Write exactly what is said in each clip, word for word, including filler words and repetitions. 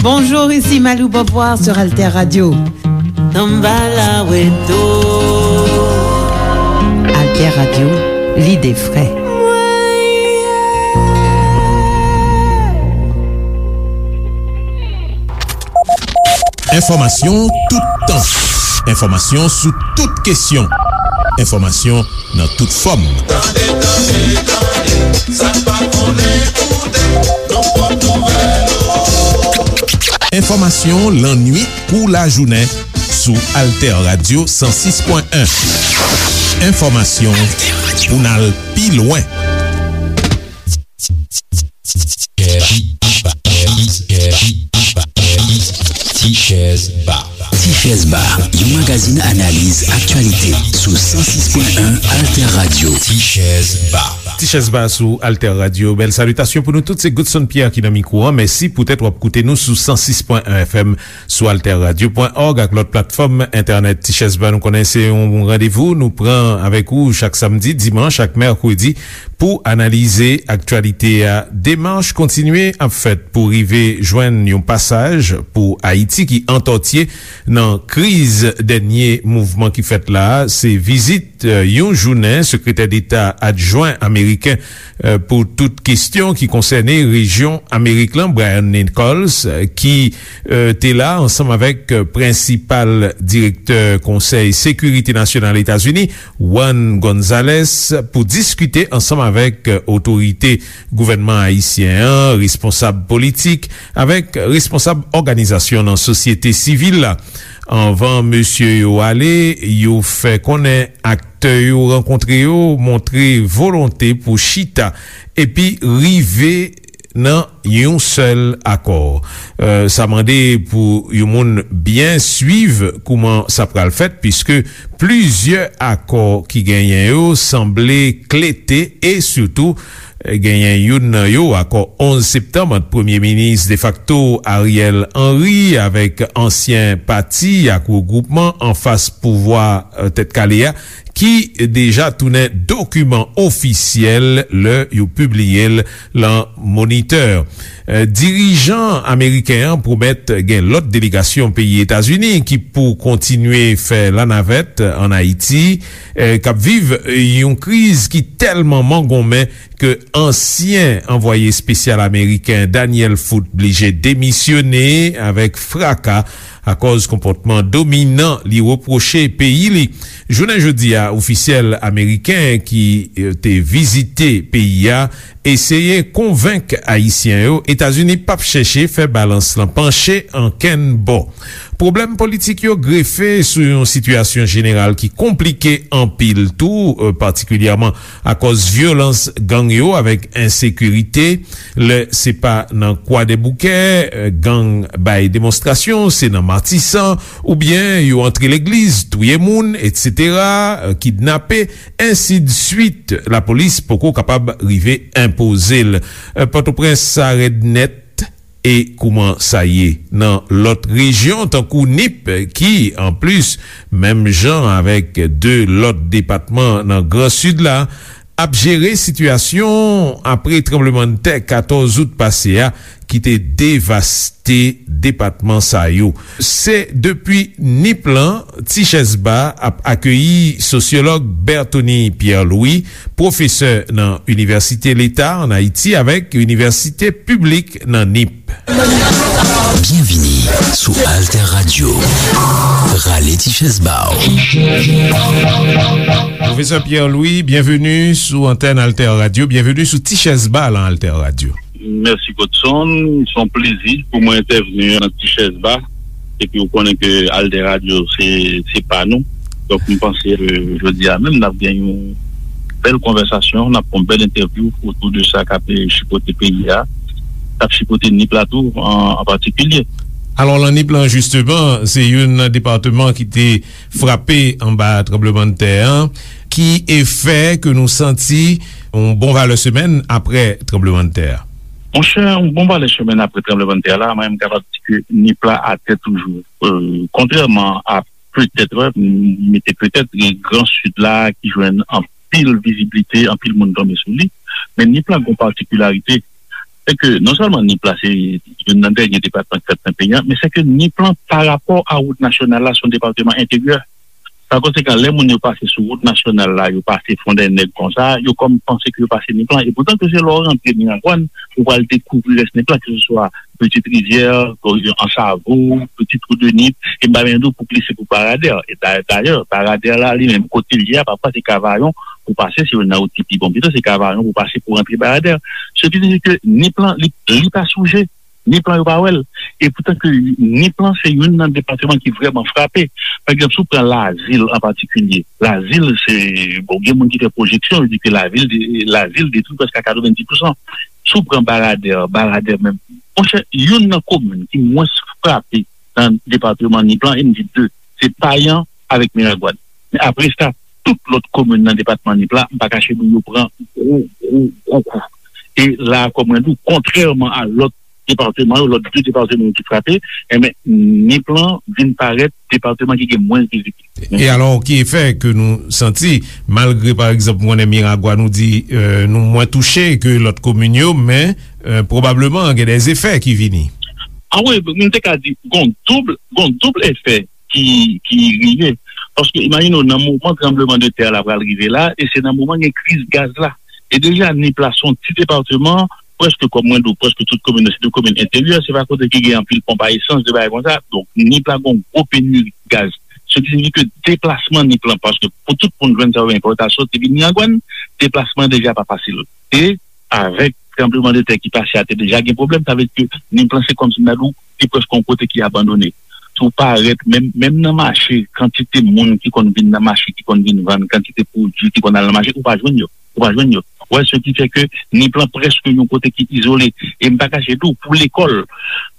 Bonjour, ici Malou Beauvoir sur Alter Radio. Alter Radio, l'idée vraie. Enfòmasyon toutan. Enfòmasyon sou tout kesyon. Enfòmasyon nan tout fòm. Tande, tande, tande, sa k pa konnen koute, nan pòt nouvèl yo. Enfòmasyon lannuit kou lajounen sou Alter Radio san sis pwen en. Enfòmasyon pou n al pi lwen. Tichèz Ba. Tichèz Ba, yon magazin analiz aktyalite sou san sis pwen en Alter Radio. Tichèz Ba. Tichèz Ba sou Alter Radio. Bèl salitasyon pou nou tout. Se Goodson Pierre ki nan mikwo a. Mèsi poutèt w ap koute nou sou san sis pwen en F M, sou alter radio pwen org ak lòt platfòm entènèt. Tichèz Ba, nou konnen se yon randevou nou pran avèk ou chak samdi, dimanch ak mèkredi pou analize aktyalite a. Demach kontinye ap fèt pou rive jwenn yon pasaj pou Ayiti ki antòtye nan kriz dènye mouvman ki fèt la a. Se vizit, eh, yon jounen sekretè deta adjwen ameriken, eh, pou tout kesyon ki konsène rejyon Amerik lan, Brian Nichols, eh, ki, eh, te la ansanm avèk, eh, prensipal direktè Konsèy Sekirite Nasyonal Etazini, Juan Gonzalez, pou diskite ansanm avèk, eh, otorite gouvènman ayisyen an, responsab politik, avèk responsab òganizasyon nan sosyete sivil la. Anvan mesye yo ale, yo fè konnen aktè yo rankontre yo montre volonte pou chita epi rive nan yon sèl akò. Eh, sa mande pou yon moun byen swiv kouman sa pral fèt, piske plizyè akò ki genyen yo sanble klete e sitou, eh, genyen youn nan yo, akò onz septanm ant premye minis defakto Ariel Henry avèk ansyen pati ak regwoupman anfas pouvwa, eh, Tèt Kale a, ki deja tounen dokiman ofisyèl lè yo pibliye l lan Moniteur. Eh, dirijan ameriken an pwomèt gen lòt delegasyon peyi Etazini ki pou kontinye fè lanavèt ann Ayiti, eh, k ap viv yon kriz ki tèlman mangonmen ke ansyen anvwaye espesyal ameriken Daniel Foote blije demisyone avèk fraka akòz konpòtman dominan li repwoche peyi li. Jounen jodi a, ofisèl ameriken ki, eh, te vizite peyi a eseye konvenk Ayisyen yo Etazini p ap chèche fè balans lan panche ankenn bò. Pwoblèm politik yo grefe sou yon sitiyasyon jeneral ki konplike anpil tou, eh, patikilyèman akòz vyolans gang yo avèk ensekirite. Lè se pa nan Kwadèboukè, eh, gang bay demonstrasyon, se nan Matisan, oubyen yo antre legliz, touye moun, etsetera, eh, kidnape, ensidswit. Lapolis poko kapab rive enpoze l. Eh, Pòtoprens sa rèd nèt. E kouman sa ye nan lòt rejyon, tankou Nip, ki, anplis, menm jan avèk de lòt depatman nan Gran Sid la, ap jere sitiyasyon apre tranblemanntè katòz out pase a ki te devaste depatman sa yo. Se depi Nip lan, Tichèz Ba ap akeyi sosyològ Berthony Pierre Louis, pwofesè nan Inivèsite Leta ann Ayiti avèk Inivèsite Piblik nan Nip. Byenvini sou Alter Radio. Rale ti chèz ba w. Pwofesè Pierre Louis, byenveni sou antèn Alter Radio, byenveni sou Ti Chèz Ba lan Alter Radio. Mèsi, Godson. Se yon plezi pou mwen entèvni nan Ti Chèz Ba. Epi, ou konnen ke Alter Radio, se, se pa nou. Donk, m panse ke jodi a menm, n ap gen yon bèl konvèsasyon, n ap fè yon bèl entèvyou otou de sa k ap chipote peyi a, k ap chipote Nip la tou, an, an patikilye. Alò, lan Nip lan, jisteman, se youn nan depatman ki te frape anba tranblemanntè an. Ki efè ke nou santi yon bon valè semèn apre tranblemanntè a? Monchè, yon bon valè semèn apre tranblemanntè la, mwen, m kapab di ke Nip la atè toujou. Euh, kontrèman a petèt, m mete petèt, gen Gran Sid la ki jwenn anpil viziblite, anpil moun tonbe sou li. Men Nip la gen yon patikilarite. Se ke non sèlman Nip la se youn nan dènye depatman ki fèt nan peyi a, men se ke Nip lan, pa rapò a wout nasyonal la, se yon depatman enteryè. Pa konsekan, lè moun yo pase sou wout nasyonal la, yo pase Fondènèg konsa, yo kòm panse ke yo pase Nip lan. E poutan ke se lè w rantre Miragwàn, ou pral dekouvri rès Nip lan, ke se swa Petite Rivière, Ansavo, Petit Trou de Nip, e m pa menm di w pou glise pou Baradè. E da- dayè, Baradè la, li menm, kote l ye a, pafwa se Kavayon pou pase, se youn nan wout ki pi bon pito, se Kavayon pou pase pou rantre Baradè. Se ki vle di ke Nip lan, li, li pa souje. Nip lan yo pa wè l. E poutan ke Nip lan se youn nan depatman ki vrèman frape. Pa egzanp, si w pran Lazil an patikilye, Lazil se, bon, gen moun ki fè pwojeksyon, yo di ke lavil de, Lazil detwi prèske a katrevenndis pousan. Si w pran Baradè, Baradè menm, monchè, youn nan komin ki mwens frape nan depatman Nip lan, e m di de, se Payan avèk Miragwàn. Men apre sa, tout lòt komin nan depatman Nip la, m pa kache di w, yo pran gwo, gwo, gwo kou. E la, kòm mwen di w, kontrèman a lòt depatman yo, lòt de depatman yo ki frape, enben, Nip lan vin parèt depatman ki gen mwens vizibilite. E alò, ki efè ke nou santi, malgre, pa egzanp, mwen, Miragwàn, nou di, euh, nou mwen touche ke lòt komin yo, men, euh, pwobableman, gen de efè ki vini? A wi, m te ka di, gon doub, gon doub efè ki, ki rive. Paske imajine w, nan moman tranblemanntè la pral rive la, e se nan moman gen kriz gaz la. E deja, Nip la se yon ti depatman, prèske, kòm mwen di w, prèske tout komin nan, se de komin enteryè, se pa kote ki gen anpil ponp a esans, de bagay konsa. Donk, Nip la gen yon gwo peniri gaz. Se ki siyifi ke deplasman Nip lan, paske pou tout moun jwenn sa yo enpòtan, soti vin Miragwàn, deplasman deja pa fasil. E avèk tranblemanntè ki pase a, te deja gen pwoblèm, sa vle di ke Nip lan se kòmsi m ta di w, li prèske yon kote ki abandone. Si w parèt, menm, menm nan mache, kantite moun ki konn vin nan mache, ki konn vin vann, kantite pwodui ki konn al nan mache, ou pa jwenn yo. Ou pa jwenn yo. Ou wè, se ki fè ke Nip lan prèske yon kote ki izole. E m pa kache di w, pou lekòl,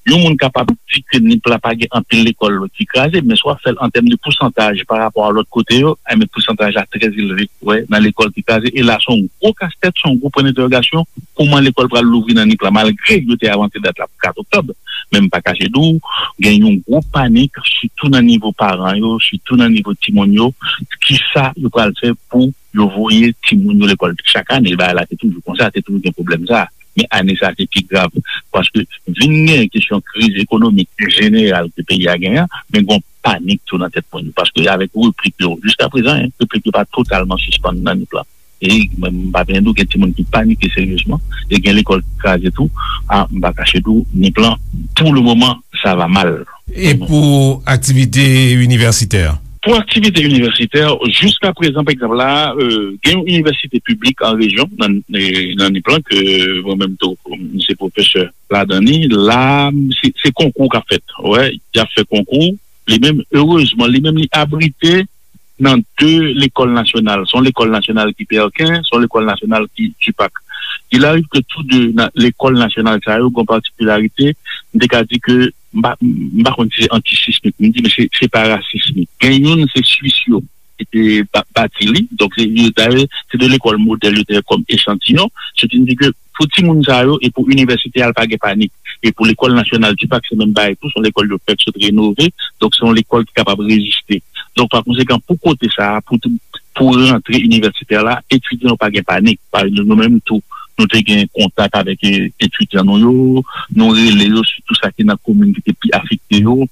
yon moun kapab di ke Nip la pa gen anpil lekòl ki kraze, men si w ap fè l an tèm de pousantaj pa rapò a lòt kote yo, enben pousantaj la trè elve, wè, nan lekòl ki kraze. E la, se yon gwo kastèt, se yon gwo pwen dentèwogasyon, kòman lekòl pral louvri nan Nip la, malgre yo te avanse dat la pou kat oktòb. Men m pa kache di w, gen yon gwo panik, sitou nan nivo paran yo, sitou nan nivo timoun yo, kisa yo pral fè pou yo voye timoun yo lekòl. Chak ane, bagay la te toujou konsa, te toujou gen pwoblèm sa. Men ane sa a, se pi grav. Paske vin gen kesyon kriz ekonomik jeneral ke peyi a genyen, men gen yon panik tou nan tèt moun yo. Paske avèk replik yo, jiska prezan, en, replik yo pa totalman sispann nan Nip lan. E mwen, m pa byen di w, gen timoun ki panike seryezman, e gen lekòl ki kraze tou. A, m pa kache di w, Nip lan, pou le moman, sa va mal. E pou aktivite inivèsitè? Pou aktivite inivèsitè, jiska prezan, pa egzanp la, euh, gen yon inivèsite piblik an rejyon, nan, e, nan Nip lan, ke mwen menm tou, m se pwofesè ladan li. La, se, se konkou k ap fèt. Wè, y ap fè konkou. Li menm, erezman, li menm, li abrite nan de lekòl nasyonal. Se yon lekòl nasyonal ki Pèken, se yon lekòl nasyonal ki Tipak. Il arrive que tous deux, nan lekòl nasyonal sa yo, gen yon patikilarite, m te ka di ke, m pa, m pa konn si se antisismik, m di, men se, se pa rasismik. Gen youn, se Swis yo ki te ba-, bati li. Donk, se, yo, dayè, se de lekòl modèl yo te fè kòm echantiyon. Se vin di ke pou timoun sa yo e pou inivèsite a, l pa gen panik. E pou lekòl nasyonal Tipak, se menm bagay tou, se yon lekòl yo fèk sot renove. Donk, se yon lekòl ki kapab reziste. Donk, pa konsekan, pou kote sa a, pou, pou rantre inivèsitè la, etidyan yo pa gen panik. Pa egzanp, nou menm tou, nou te gen kontak avèk, e, etidyan nou yo, nou rele yo, sitou sa ki nan komin ki te pi afekte yo,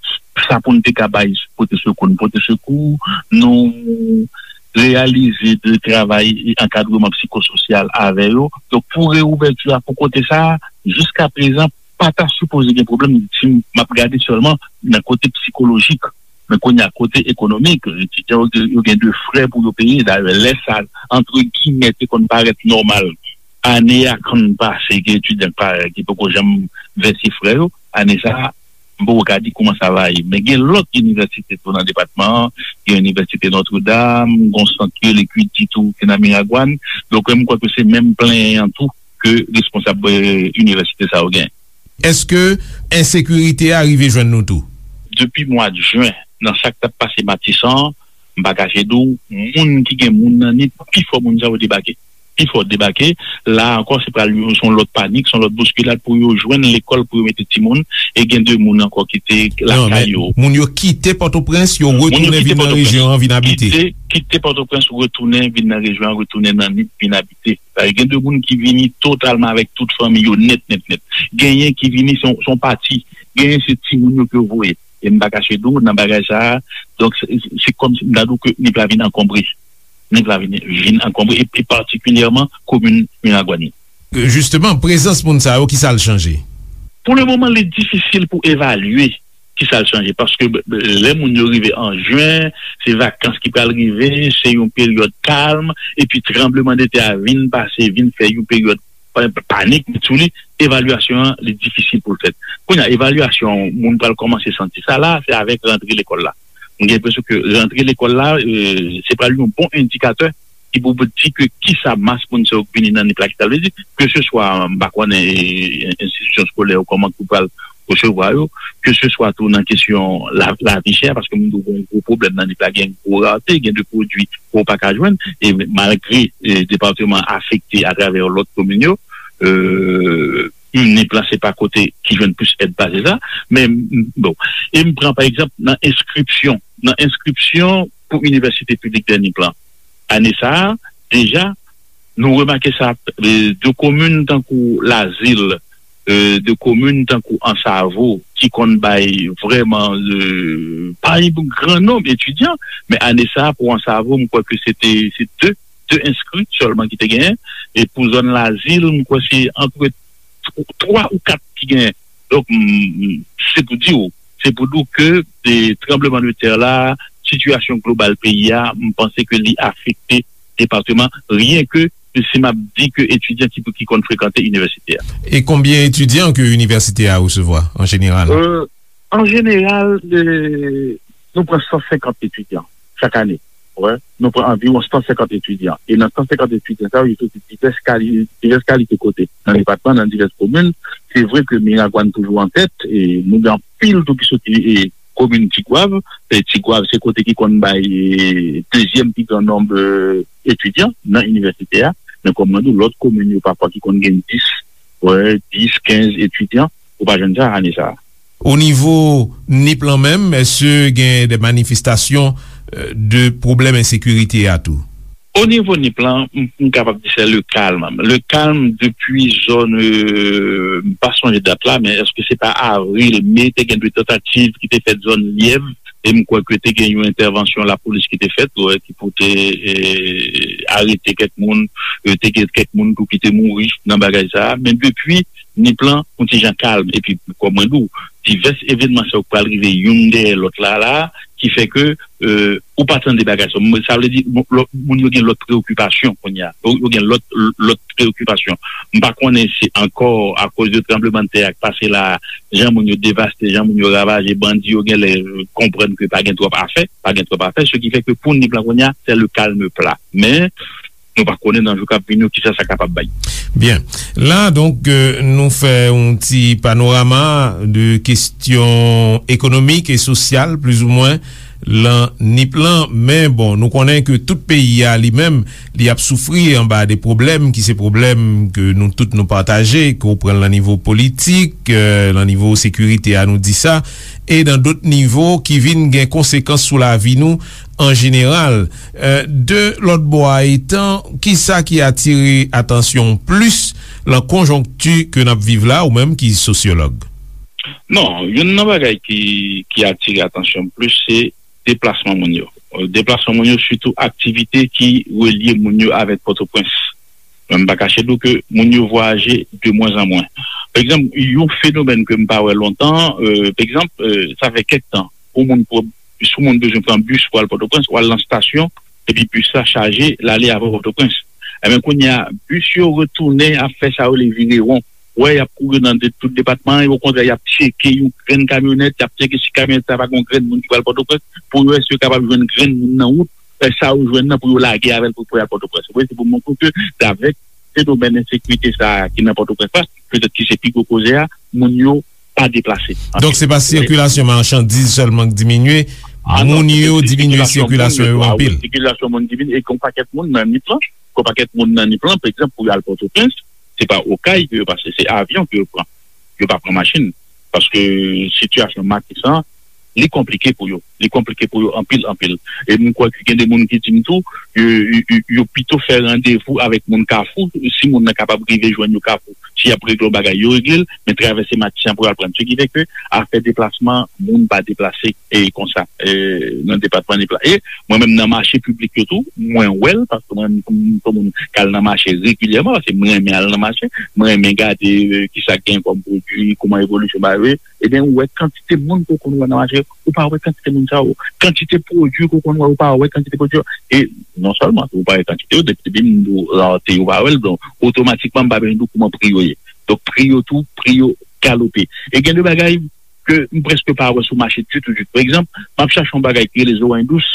sa pou n te ka bay pote sekou, n pote sekou, nou reyalize de travay e ankadreman psikososyal avè yo. Donk, pou reouvèti a, pou kote sa a, jiska prezan, pa ta sipoze gen pwoblèm si m ap gade sèlman nan kote psikolojik. Men kounye a, kote ekonomik, etidyan yo, yo gen de frè pou yo peye. Dayè, lè sa, antre gimè, te konn parèt nòmal ane a konn pase, gen etidyan ki pa, ki poko janm vèse frè yo. Ane sa a, m poko ka di kòman sa va ye. Men gen lòt inivèsite tou nan depatman an, gen Inivèsite Notre Dame, gen yon sant ki rele Kwidi tou ki nan Miragwàn. Donk, m kwè ke se menm plenyen an tou ke responsab, eh, inivèsite sa yo gen. Èske ensekirite a rive jwenn nou tou? Depi mwa jen, nan sa k t ap pase Matisan an, m pa kache di w, moun ki gen moun nan Nip, pi fò moun sa yo debake. pi fò debake. La ankò, se pral yon, se yon lòt panik, se yon lòt bouskilad pou yo jwenn lekòl pou yo mete timoun, e gen de moun ankò ki te lakay yo. Non, men moun yo kite Pòtoprens, yo retounen vin nan rejyon an, vin abite. Kite, kite Pòtoprens, retounen vin nan rejyon an, retounen nan Nip, vin abite. Sa gen de moun ki vini totalman avèk tout fanmi yo, nèt, nèt, nèt. Genyen ki vini, se yon, se yon pati. Genyen, se timoun yo ke yo voye. E m pa kache di w, nan bagay sa a, donk, se, se, se kòmsi m ta di w ke Nip la vin ankonbre. Nip la vin, vin ankonbre, e, e patikilyèman komin Miragwàn yo. Jisteman, prezans moun sa yo, ki sa l chanje? Pou le moman, li difisil pou evalye ki sa l chanje, paske, b-, b-, lè moun yo rive an jen, se vakans ki pral rive, se yon peryòd kalm, epi tranblemanntè a vin pase, vin fè yon peryòd pa-, panik sou li, evalyasyon an, li difisil pou l fèt. Kounye a, evalyasyon moun pral kòmanse santi sa la, se avèk rantre lekòl la. M gen enpresyon ke rantre lekòl la, e, se pral yon bon endikatè ki pou di ke kisa mas moun sa yo k vini nan Nip la, ki sa l vle di, ke se swa, m pa konnen, e, enstitisyon eskolè yo, kòman ki pral resevwa yo, ke se swa tou nan kesyon la, lavi chè, paske moun yo gen yon gwo pwoblèm nan Nip la, gen gwo rate, gen de pwodui ke w pa ka jwenn, e malgre, e, depatman afekte atravè lòt komin yo, e, Nip la se pa kote ki jwenn plis èd pase sa, men, m, bon, e m pran pa egzanp nan enskripsyon, nan enskripsyon pou Inivèsite Piblik de Nip la. Ane sa a, deja, nou remake sa, e, de komin tankou Lazil, e, de komin tankou Ansavo, ki konn bay vrèman, e, pa yon gran nonb etidyan, men ane sa a, pou Ansavo, m kwè ke se te, se de, de enskri sèlman ki te genyen, e pou zòn Lazil, m kwè se antre tw-, twa ou kat ki genyen. Donk, m, m, se pou di w, se pou di w ke, e, tranblemanntè la, sitiyasyon global peyi a, m panse ke li afekte depatman, ryenke si m ap di ke etidyan ki, ki konn frekante inivèsite a. E konbyen etidyan ke inivèsite a resevwa, an jeneral? E, an jeneral, e, nou pran san senkant etidyan chak ane. Wè, nou pran anviwon san senkant etidyan. E nan san senkant etidyan sa yo, yo soti divès kali-, divès kalite kote. Nan depatman, nan divès komin, se vre ke Miragwàn toujou an tèt, e nou gen anpil tou ki soti, e, komin Tigwav. E Tigwav, se kote ki konn bay, e, dezyèm pi gran nonb, e, etidyan nan inivèsite a. Men kòm mwen di w, lòt komin yo pafwa ki konn gen dis, wè, dis, kenz etidyan, ou pa jwenn sa ane sa a. O nivo Nip lan menm, èske gen de manifestasyon, e, de pwoblèm ensekirite a tou? O nivo Nip lan, m, m kapab di se le kalm. Le kalm depi zòn, e, m pa sonje dat la, men èske se pa avril, me, te gen de tantativ ki te fèt zòn Lyèv, e m kwè ke te gen yon entèvansyon lapolis ki te fèt, wè, ki pou te, e, arete kèk moun, e, te gen kèk moun tou ki te mouri nan bagay sa a. Men depi Nip lan, yon ti jan kalm. Epi, kòm mwen di w, divès evènman sa yo k pral rive youn dèyè lòt la, la, ki fè ke, e, ou pa tande bagay sa. Mwen, sa vle di, bon, lòt, moun yo gen lòt preyokipasyon kounye a. Yo, yo gen lòt, lòt preyokipasyon. M pa konnen se ankò akoz de tranblemanntè a k pase la, jan moun yo devaste, jan moun yo ravaje, bandi yo genlè konprann ke pa gen twòp afè, pa gen twòp afè, ce qui fait que pou Nip lan kounye a, c'est le calme plat. Men, nou pa konnen nan jou k ap vini yo kisa sa kapab bay. Byen. La, donk, e, nou fè yon ti panorama de kesyon ekonomik e sosyal, plizoumwen, lan Nip lan. Men, bon, nou konnen ke tout peyi a, li menm, li ap soufri anba de pwoblèm ki se pwoblèm ke nou tout nou pataje, ke w pran l nan nivo politik, e, nan nivo sekirite a, nou di sa, e nan dòt nivo ki vin gen konsekans sou lavi nou an jeneral. E, de lòt bò a etan, kisa ki atire atansyon w plis lan konjonkti ke n ap viv la, ou menm ki sosyològ? Non, youn nan bagay ki, ki atire atansyon m plis, se deplasman moun yo. E, deplasman moun yo, sitou aktivite ki relye moun yo avèk Pòtoprens. Mwen, m pa kache di w ke moun yo vwayaje de mwen an mwen. Pa egzanp, yon fenomèn ke m pa wè lontan, e, pa egzanp, e, sa fè kèk tan, pou moun pran, si yon moun bezwen pran bis pou al Pòtoprens, w al nan estasyon, epi bis la chaje, l ale avè w Pòtoprens. Ebyen, kounye a, bis yo retounen ap fè sa yo rele vire won. Wè, y ap kouri nan de, tout depatman an, e okontrè, y ap tcheke yon grenn kamyonèt, y ap tcheke si kamyonèt sa pa gen yon grenn moun ki pral Pòtoprens, pou yo wè si yo kapab jwenn grenn moun nan wout, e, sa yo jwenn nan pou yo lage avè l pou, pou y al Pòtoprens. Ou wè, se pou montre w ke, avèk fenomèn ensekirite sa a ki nan Pòtoprens la, petèt ki se pi gwo koze a, moun yo pa deplase. Donk, se pa sikilasyon machandiz sèlman k diminye, moun yo diminye sikilasyon yo anpil. Sikilasyon moun diminye, e gen yon pakèt moun nan Nip lan, yon pakèt moun nan Nip lan, pa egzanp, pou yo al Pòtoprens, se pa Okay ke yo pase, se avyon ke yo pran. Yo pa pran machin. Paske sitiyasyon Matisan, li konplike pou yo. Li konplike pou yo anpil, anpil. E m kwè ke gen de moun ki di m tou, yo, yo, yo, yo pito fè randevou avèk moun Kafou, si moun nan kapab rive jwenn yo Kafou. Si y ap regle yon bagay, yo regle l, men travèse Matisan pou yo al pran. Se ki fè ke afè deplasman, moun pa deplase e konsa, e, nan depatman Nip la. E mwen menm nan mache piblik yo tou, mwen wè l, paske mwen menm m se yon moun k al nan mache regilyèman, paske mwen renmen al nan mache, mwen renmen gade, e, kisa k gen kòm pwodui, kòman evolisyon bagay yo ye. Ebyen, ou wè kantite moun ke w konn wè nan mache, ou pa wè kantite moun sa yo. Kantite pwodui ke w konn wè, ou pa wè kantite pwodui yo. E non sèlman ou pa wè kantite yo, depi, depi m di w rarete, ou pa wè l, donk, otomatikman, m pa bezwen di w kòman pri yo ye. Donk, pri yo tou, pri yo galope. E gen de bagay ke m prèske pa wè sou mache ditou, ditou. Pa egzanp, m ap chache yon bagay ki rele zoranj dous,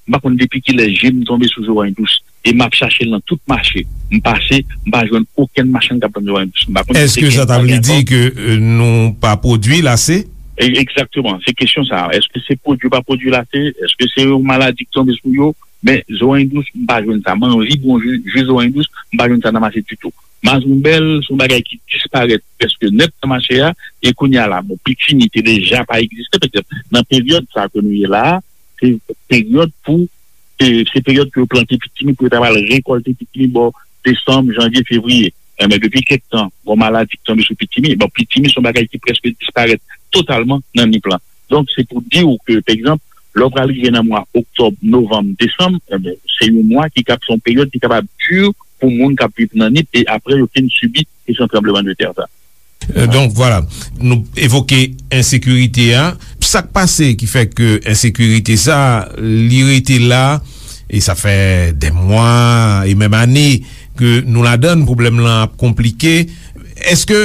m pa konn depi kilè je m tonbe sou zoranj dous. E m ap chache l nan tout mache. M pase, m pa jwenn okenn machann k ap vann zoranj dous. M pa konn si se Èske sa ta vle di ke, e, nou pa pwodui l ase? E, egzakteman, se kesyon sa a. Èske se pwodui yo pa pwodui l ase? Èske se yon maladi k tonbe sou yo? Men zoranj dous, m pa jwenn sa. M anvi bwè yon ji, ji zoranj dous, m pa jwenn sa nan mache ditou. Mazonbèl, se yon bagay ki disparèt prèske nèt nan mache a, e kounye a la, bon, pitimi te deja pa egziste, petèt nan peryòd sa ke nou ye la a, se peryòd pou, se, se peryòd ke yo plante pitimi, pou yo ta pral rekòlte pitimi bò desanm, janvye, fevriye. Enben, depi kèk tan, gon maladi ki tonbe sou pitimi. Bon, pitimi se yon bagay ki prèske disparèt totalman nan Nip lan. Donk, se pou di w ke, pa egzanp, lè w pral rive nan mwa oktòb, novanm, desanm, enben, se yon mwa ki kab, se yon peryòd ki kapab di pou moun k ap viv nan Nip, e apre yo fin sibi kesyon tranblemanntè sa. E, donk, vwala, nou evoke ensekirite a. Sa k pase ki fè ke ensekirite sa, li rete la, e sa fè dè mwa e menm ane ke nou ladan l, pwoblèm lan ap konplike. Èske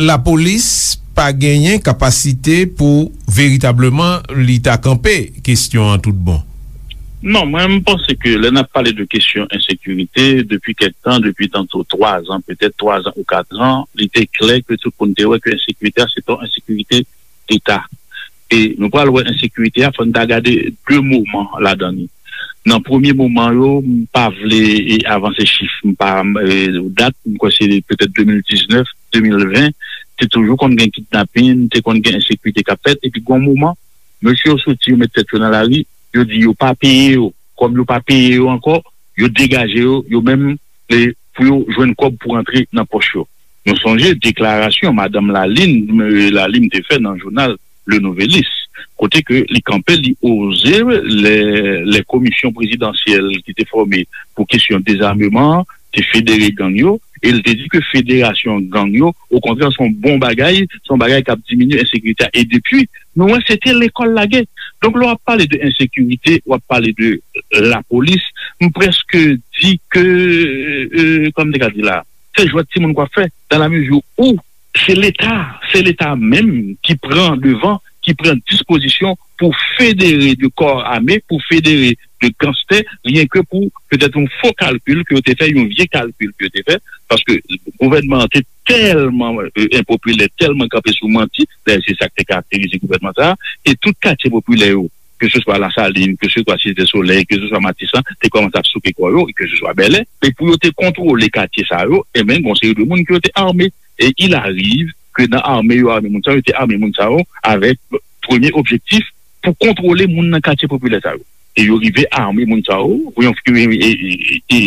lapolis pa genyen kapasite pou veritableman li ta kanpe kesyon an tout bon? Non, mwen, m panse ke lè n ap pale de kesyon ensekirite, depi kèk tan, depi tanto twa zan, petèt twa zan ou kat zan, li te klè ke tout moun te wè ke ensekirite a, se pa yon ensekirite deta. E nou pral wè ensekirite a, fò n ta gade de moman ladan li. Nan premye moman yo, m pa vle, e, avanse chif, m pa, e, dat, m kwè se petèt de mil diznèf, de mil ven, te toujou konn gen kidnapin, te konn gen ensekirite k ap fèt, epi gon moman, mesye yo soti, yo met tèt yo nan lari, yo di yo pa peye yo. Kòm yo pa peye yo ankò, yo degaje yo, yo menm, e, pou yo jwenn kòb pou rantre nan pòch yo. Nou sonje deklarasyon madanm Lalime, e, Lalime te fè nan jounal Le Nouvelliste, kote ke li kanpe, li oze lè, lè komisyon prezidansyèl ki te fòme pou kesyon dezameman an te federe gang yo, e l te di ke federasyon gang yo, okontrè, se yon bon bagay, se yon bagay k ap diminye ensekirite a. E depi, nou wè se te lekòl lagè. Donk, lè w ap pale de ensekirite, w ap pale de lapolis, m prèske di ke, e, kòman m te ka di la, se jwèt timoun k w ap fè, dans la mesure où se Leta, se Leta menm ki pran devan, ki pran dispozisyon pou federe de kò ame, pou federe de ganstè, ryen ke pou petèt yon fo kalkil ke yo te fè, yon vye kalkil ke yo te fè, paske gouvènman an te tèlman, e, enpopilè, tèlman kanpe sou manti, dayè se sa k te karakterize gouvènman sa a, e tout katye popilè yo, ke se swa Lasalin, ke se swa Site Solèy, ke se swa Matisan, te kòmanse ap souke kò yo, e ke se swa Bèlè, e pou yo te kontwole katye sa yo, enben, gon seri de moun ke yo te ame. E il arrive ke nan ame yo ame moun sa yo, yo te ame moun sa yo avèk premye objektif pou kontwole moun nan katye popilè sa yo. E yo rive ame moun sa yo, pou yon, e, e, e, e,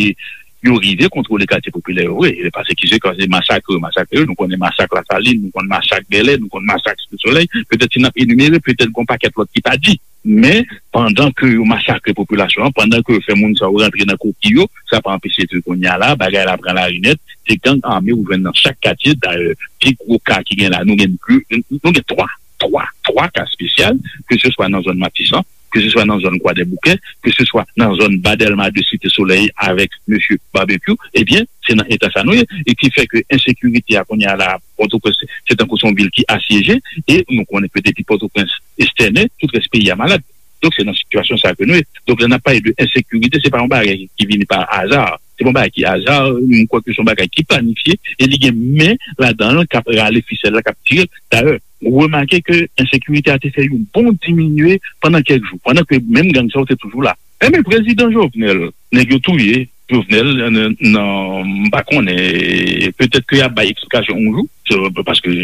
yo rive kontwole katye popilè yo vre. E pase ki se, kan se masakre yo masakre yo, nou konnen masak Lasalin, nou konnen masak Bèlè, nou konnen masak Site Solèy, petèt si n ap enimere, petèt gon pakèt lòt ki pa di. Men, pandan ke yo masakre popilasyon an, pandan ke yo fè moun sa yo rantre nan koki yo, sa pa anpeche ke kounye a la, bagay la pran lari nèt, se gang ame ou jwenn nan chak katye. Dayè, pi gwo ka ki gen la, nou gen de, nou gen twa, twa, twa ka espesyal, ke se swa nan zòn Matisan, ke se swa nan zòn Kwadèboukè, ke se swa nan zòn Ba Dèlma de, Site Solèy avèk mesye Barbecue, ebyen, se nan eta sa nou ye. E ki fè ke ensekirite a kounye a la, Pòtoprens, se tankou se yon vil ki asyeje, e nou konnen ke depi Pòtoprens estène, tout rès peyi a malad. Donk, se nan sitiyasyon sa ke nou ye. Donk, lè n ap pale de ensekirite, se pa yon bagay ki vini pa aza. Se pa yon bagay ki aza, m kwè ke se yon bagay ki planifye, e li gen men ladan l k ap rale fisèl la, k ap tire l. Dayè, remake ke ensekirite a te fè yon bon diminye pandan kèk jou, pandan ke menm gang sa yo te toujou la. Enben, prezidan Jovenel, nèg yo touye, Jovenel, nan, nan, m pa konnen, petèt ke y ap bay eksplikasyon yon jou, se, paske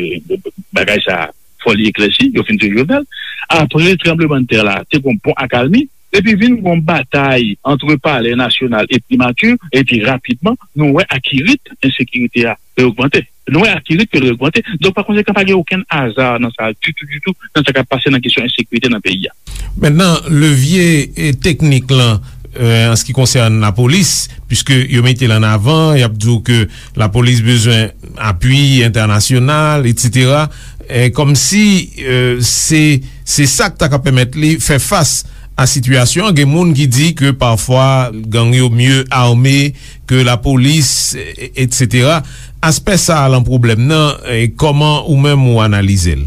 bagay sa, fò li eklèsi, yo fin touye Jovenel. Apre tranblemanntè la, te gon bon akalmi, epi vin gon batay antre Palè Nasyonal e Primati, epi rapidman, nou wè akirit ensekirite a ogmante. Nou wè akirit ke l ogmante. Donk, pa konsekan, pa gen okenn aza nan sa ditou, ditou, nan sa k ap pase nan kesyon ensekirite nan peyi a. Mentnan, levye, e, teknik lan, e, an se ki konsène lapolis, piske yo mete l an avan, y ap di w ke lapolis bezwen apui entènasyonal, etsetera. E, kòmsi, e, se, se sa k ta ka pèmèt li fè fas a sitiyasyon an. Gen moun ki di ke pafwa gang yo mye ame ke lapolis, e, etsetera. Aspè sa a lan pwoblèm nan, e, kòman ou menm ou analize l?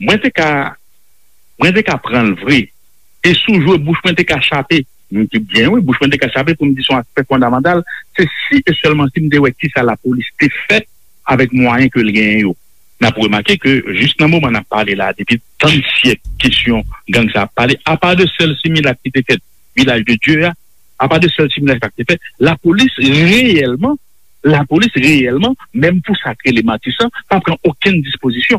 Mwen te ka, mwen te ka pran l vre. E sou jwe bouch mwen te ka chape. M te byen, wi, bouch mwen te ka chape pou m di se yon aspè fondamantal. Se si e sèlman si m te wè kisa lapolis te fè avèk mwayen ke l genyen yo. N ap remake ke jis nan moman n ap pale la, depi tann syèk, kesyon gang sa ap pale, apa de sèl similak ki te fèt Vilaj de Dye a, apa de sèl similak sa ki te fèt, lapolis reyèlman, lapolis reyèlman, menm pou sa k rele Matisan, pa pran okenn dispozisyon.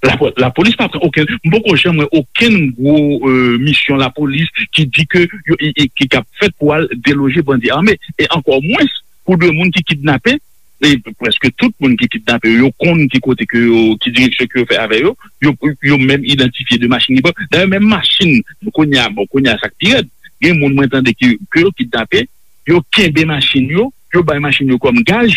Lapo-, lapolis pa pran okenn, m poko janm wè okenn gwo, e, misyon lapolis ki di ke yo, e, e, ki, k ap fèt pou al deloje bandi ame, e ankò mwens pou de moun ki kidnape, e prèske tout moun ki kidnape yo, yo konn ki kote ke yo, ki direksyon ke yo fè avè yo, yo, yo menm idantifye de machin ki pran. Dayè, menm machin, kounye a, bon, kounye a sa k pi rèd, gen moun mwen tande ki, ke yo kidnape, yo kenbe machin yo, yo bay machin yo kòm gaj.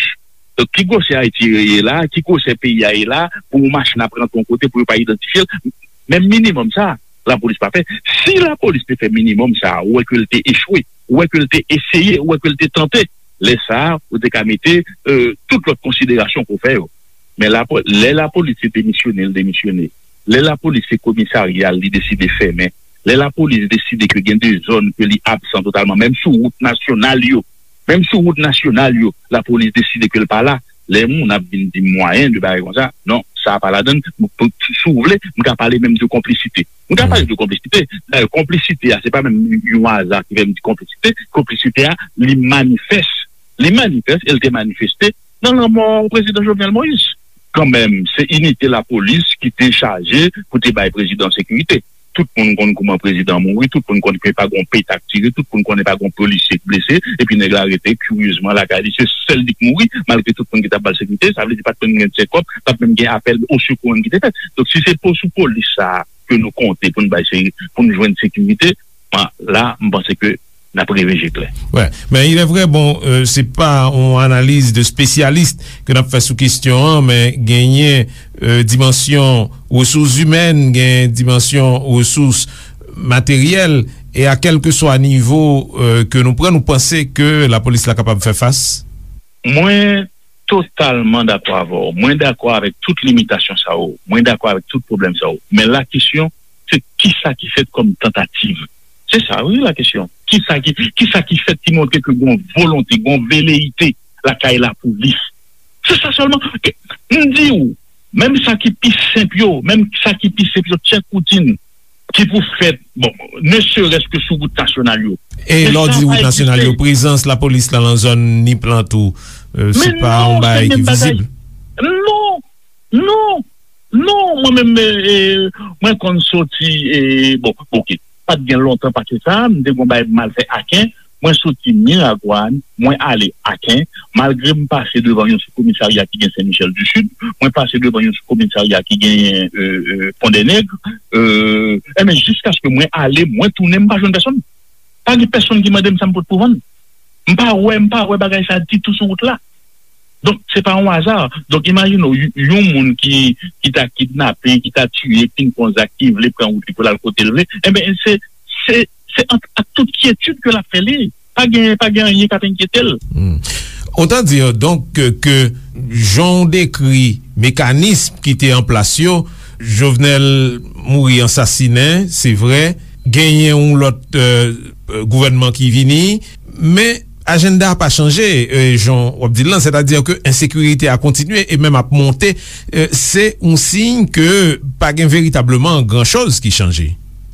Donk, ki gwosè Ayiti ye la, ki gwosè peyi a ye la, pou yon machin ap rantre yon kote, pou yo pa idantifye l? Menm minimòm sa, lapolis pa fè. Si lapolis te fè minimòm sa, ou wè ke l te echwe, ou wè ke l te eseye, ou wè ke l te tante, lè sa a, ou te ka mete, e, tout lòt konsiderasyon pou fè yo. Men lapo-, lè lapolis se demisyone, l demisyone. Lè lapolis se komisarya l, li deside fèmen. Lè lapolis deside ke gen de zòn ke li absan totalman, menm sou wout nasyonal yo, menm sou wout nasyonal yo, lapolis deside ke l pa la. Lè moun ap vin di m mwayen de bagay konsa, non, sa a pa ladan l. M, pou, si w vle, m ka pale menm de konplisite. M ka pale de konplisite. Dayè, konplisite a, se pa menm yon aza ki fè m di konplisite. Konplisite a, li manifès. Li manifès e l te manifeste nan lanmò prezidan Jovenel Moïse. Kanmenm, se inite lapolis ki te chaje pou te bay prezidan sekirite. Tout moun konn kouman prezidan mouri, tout moun konn ke pa gon peta k tire, tout moun konnen pa gon polisye k blese, epi nèg la rete kiryezman lakay li, se sèl li k mouri, malgre tout moun ki t ap ba l sekirite, sa vle di pa t menm gen tchekòp, pa t menm gen apèl osekou menm ki te fèt. Donk, si se po-, sou polis sa a ke nou konte pou n bay se-, pou n jwenn sekirite, la, m panse ke n ap reve je klè. Wè, men il est vrai, bon, euh, se pa yon analiz de spesyalis ke n ap fè sou kesyon an, men genyen, euh, dimansyon resous imèn, gen dimansyon resous materyèl, e a kèlkeswa nivo, euh, ke nou pran, nou panse ke lapolis la kapab fè fas? Mwen totalman dakò avè w. Mwen dakò avèk tout limitasyon sa yo. Mwen dakò avèk tout pwoblèm sa yo. Men la kesyon, se kisa ki fèt kòm tantativ? Se sa, wi, la kesyon. Kisa ki, kisa ki fèt ki montre ke gon volonte, gon veleyite lakay lapolis? Se sa sèlman. M di w, menm sa ki pi senp yo, menm sa ki pi senp yo, tchèk woutin ki pou fèt, bon, ne serait-ce que sou wout nasyonal yo. E lè w di wout nasyonal yo, prezans lapolis la nan zòn Nip lan tou, euh, se pa yon bagay ki vizib? Non, non, non, mwen menm, e, e, mwen konn soti, e, bon, oke, pa t gen lontan pase sa, m te gon bagay m al fè Aken, mwen soti Miragwàn, mwen ale Aken, malgre m pase devan yon sou komisarya ki gen Sen Michèl di Sid, mwen pase devan yon sou komisarya ki gen, e, e, Pon dè Nèg, e, enben, jiskaske mwen ale, mwen tounen, m pa jwenn pèsonn. Pa gen pèsonn ki mande m sa m pot pou vann. M pa wè, m pa wè bagay sa ditou sou wout la. Donk, se pa yon aza. Donk, imajine w, y-, yon moun ki, ki ta kidnape, ki ta tiye, ki fin fè yon zak, ki vle pran wout li pou l al kote l vle, enben, se, se, se ak, ak tout kyetid ke l ap fè li. Pa gen, pa gen anyen k ap enkyete l. Hmm. Autant dire donc que, que jan w dekri mekanism ki te an plas yo, Jovenel mouri ansasinen, se vre, genyen yon lòt, euh, euh, gouvènman ki vini, men ajannda a pa chanje, euh, jan w ap di l lan, sètadi ke ensekirite a kontinye e menm ap monte, euh, se yon siy ke pa gen veritableman gran choz ki chanje.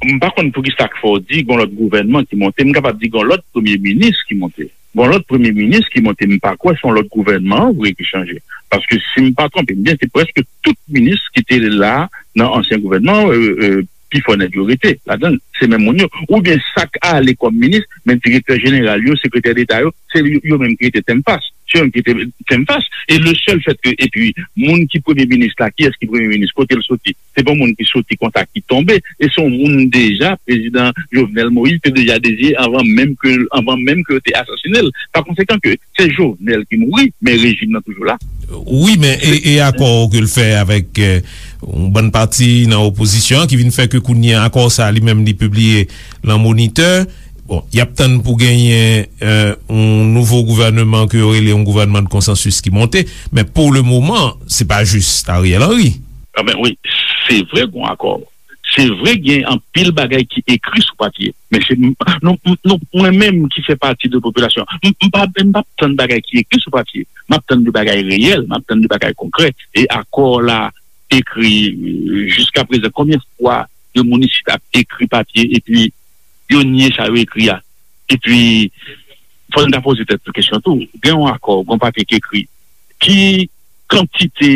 M pa konn poukisa k fè w di gon lòt gouvènman ki monte, m kapab di gon lòt premye minis ki monte. Bon, lòt premye minis ki monte, m pa kwè se yon lòt gouvènman an vre ki chanje. Paske si m pa twonpe m byen, se prèske tout minis ki te la nan ansyen gouvènman an, euh, euh, pifò nèg yo rete ladan l, se menm moun yo. Oubyen sa k ale kòm minis, men direktè jeneral yo, sekretè deta yo, se yo, yo menm ki rete tèm fas. Se yo menm ki rete tèm fas. E le sèl fèt ke, epi, moun ki premye minis la, kiyès ki premye minis, kote l soti? Se pa moun ki soti konsa ki tonbe. E se yon moun deja, prezidan Jovenel Moïse te deja deziye anvan menm ke, anvan menm ke yo te asasinen l. Pa konsekan ke se Jovenel ki mouri, men rejim nan toujou la. Wi, men e, e akò ke l fè avèk, euh, yon bann pati nan opozisyon an ki vin fè ke kounye a akò sa a li menm li pibliye nan Monitè. Bon, y ap tann pou genyen, euh, yon nouvo gouvènman ke yo rele yon gouvènman de konsansis ki monte, men pou le moman, se pa jis Ariel Henry. Ah ben wi, se vre gon akò. Se vre gen anpil bagay ki ekri sou papye, men se nou, nou, mwen menm ki fè pati de popilasyon, m, m pa, m p ap tann bagay ki ekri sou papye. M ap tann de bagay reyèl, m ap tann de bagay konkrè. E akò la ekri, euh, jiska prezan, konbyen fwa de moun isit ap ekri papye epi yo nye sa yo ekri a? Epi, fò n ta poze tèt nou kesyon tou. Gen yon akò, gen yon papye ki ekri. Ki kantite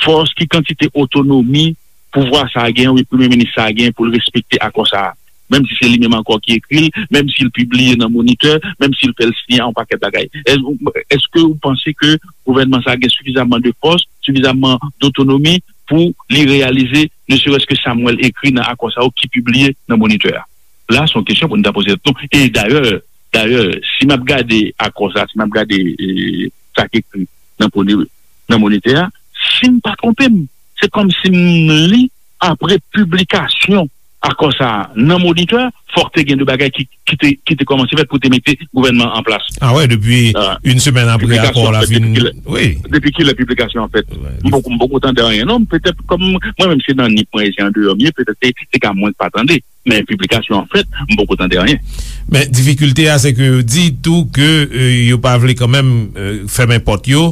fòs, ki kantite otonomi pouvwa sa a gen, wi, premye minis sa a gen pou l respekte akò sa a? Menm si se li menm ankò ki ekri l, menm si l pibliye nan Monitè, menm si l fè l siyen yon pakèt bagay. Èske, èske ou panse ke gouvènman sa a gen sifizamman de fòs, sifizamman dotonomi pou li reyalize, ne serait-ce que sa m wè l ekri nan akò sa yo ki pibliye nan Monitè a? La, se yon kesyon pou n ta poze tèt nou. E dayè, dayè, si m ap gade akò sa, si m ap gade, e, sa k ekri nan Pone-, nan Monitè a, si m pa twonpe m, se kòmsi m li apre piblikasyon akò sa a nan Monitè, fòk te gen de bagay ki, ki te, ki te kòmanse fèt pou te mete gouvènman an plas. Ah wè, depi, ah, yon semèn apre akò la fin. Wi. Depi kilè piblikasyon an fèt? M poko, m poko tande anyen, non. Petèt, kòm mwen menm, se nan nip mwen, se andeyò m ye, petèt se, se ka mwen k pa tande. Men piblikasyon an fèt, m poko tande anyen. Men difikilte a, se ke yo di tou ke, euh, yo pa vle kanmenm, euh, fèmen pòt yo.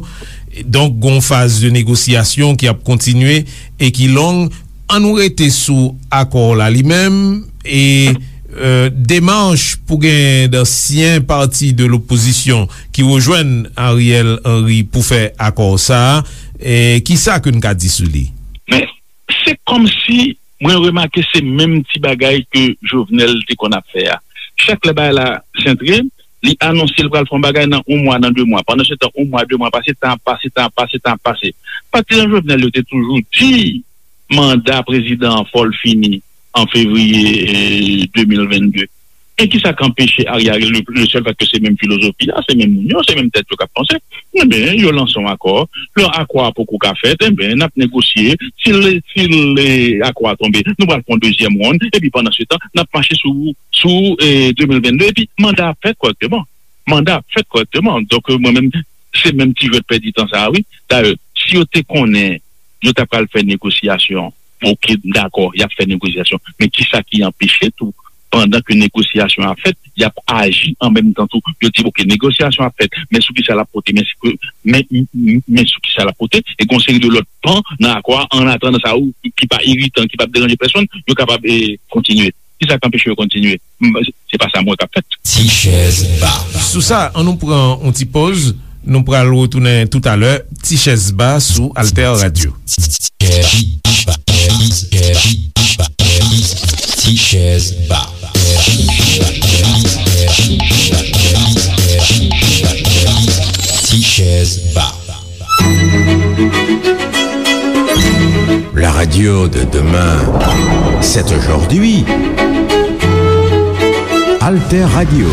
Donk, gon faz de negosyasyon ki ap kontinye e ki long. Ann nou rete sou akò la li menm e, euh, demach pou gen d'ansyen pati de lopozisyon ki rejwenn Ariel Henry pou fè akò sa a. E kisa ke n ka di sou li? Men, se kòmsi mwen remake se menm ti bagay ke Jovenel te konn ap fè a. Chak lè bagay la sentre, li anonse l pral fè yon bagay nan yon mwa, nan de mwa. Pandan se tan, yon mwa, de mwa pase, tan ap pase, tan ap pase, tan ap pase. Patizan Jovenel yo te toujou di manda prezidan an fò l fini an fevriye, eh, de mil venn de. E kisa k anpeche Ariel, le, le sèl fèt ke se menm filozofi a, se menm moun yo, se menm tèt yo k ap panse, enben, yo lanse yon akò. Lè akò a poko ka fèt, enben, n ap negosye. Si l, si l, eh, akò a tonbe, nou pral fè yon dezyèm wonn. Epi pandan se tan, n ap mache sou, sou, eh, de mil venn de. Epi manda a ap fèt kòrèkteman. Manda a ap fèt kòrèkteman. Donk, eh, mwen menm, se menm ti jwèt pèdi tan sa a, wi. Dayè, si yo te konnen yo ta pral fè negosyasyon. Oke, m dakò, y ap fè negosyasyon. Men kisa ki anpeche tou, pandan ke negosyasyon ap fèt, y ap aji an menm tan tou? Yo di, oke, negosyasyon ap fèt, men sou kisa l ap pote, men si ke, men, men, men sou kisa l ap pote, e gon seri de lòt pan nan akò a, an atandan sa yo, ki pa iritan, ki p ap deranje pèsonn, yo kapab, eh, kontinye. Kisa k anpeche yo kontinye? M, se pa sa m wè k ap fèt. Ti chèz ba. Sou sa, an nou pran yon ti pòz. Nou pral retounen toutalè. Ti chèz ba sou Alter Radio. Ti chèz ba. Ti chèz ba. La radio de demain, c'est aujourd'hui. Alter Radio,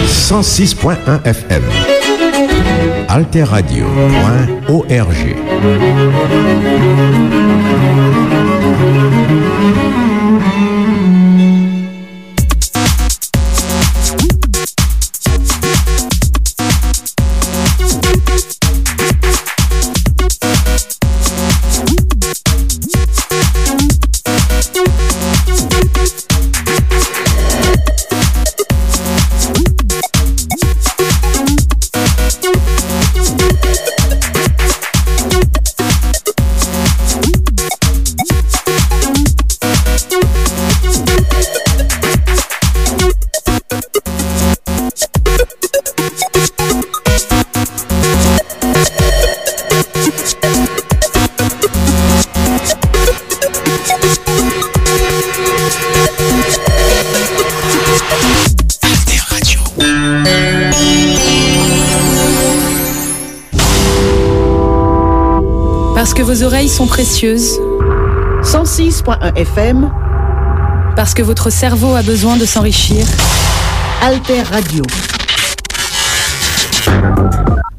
cent six point un F M. Alter Radio point O R G. Que vos oreilles sont précieuses. Cent six point un F M. Parce que votre cerveau a besoin de s'enrichir. Alter Radio.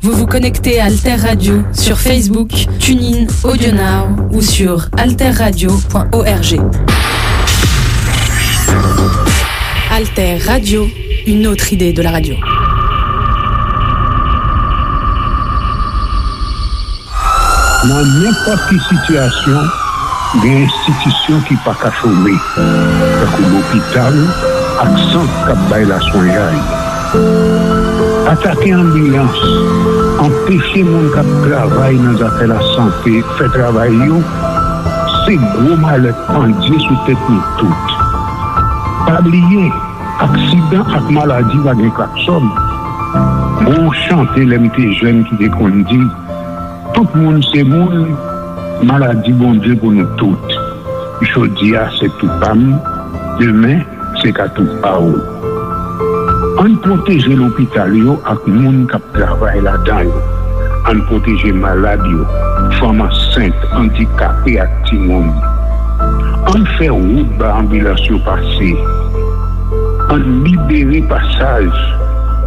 Vous vous connectez à Alter Radio sur Facebook, TuneIn, AudioNow ou sur alterradio point org. Alter Radio, une autre idée de la radio. Nan nenpòt ki sitiyasyon, gen enstitisyon ki pa ka chome, tankou lopital ak sant k ap bay laswenyay. Atake anbilans, anpeche moun k ap travay nan zafè lasante fè travay yo, se gwo malè k pandye sou tèt nou tout. Pa bliye, aksidan ak maladi pa gen klaksòn. Gon chante lè m te jèn ki te konn di, tout moun se moun, maladi Bondye pou nou tout. Jodi a se tou pa m, demen se ka tou pa w. Ann pwoteje lopital yo ak moun k ap travay ladan yo. Ann pwoteje malad yo, fanm ansent, andikape ak timoun. Ann fè wout ba anbilans yo pase. Ann libere pasaj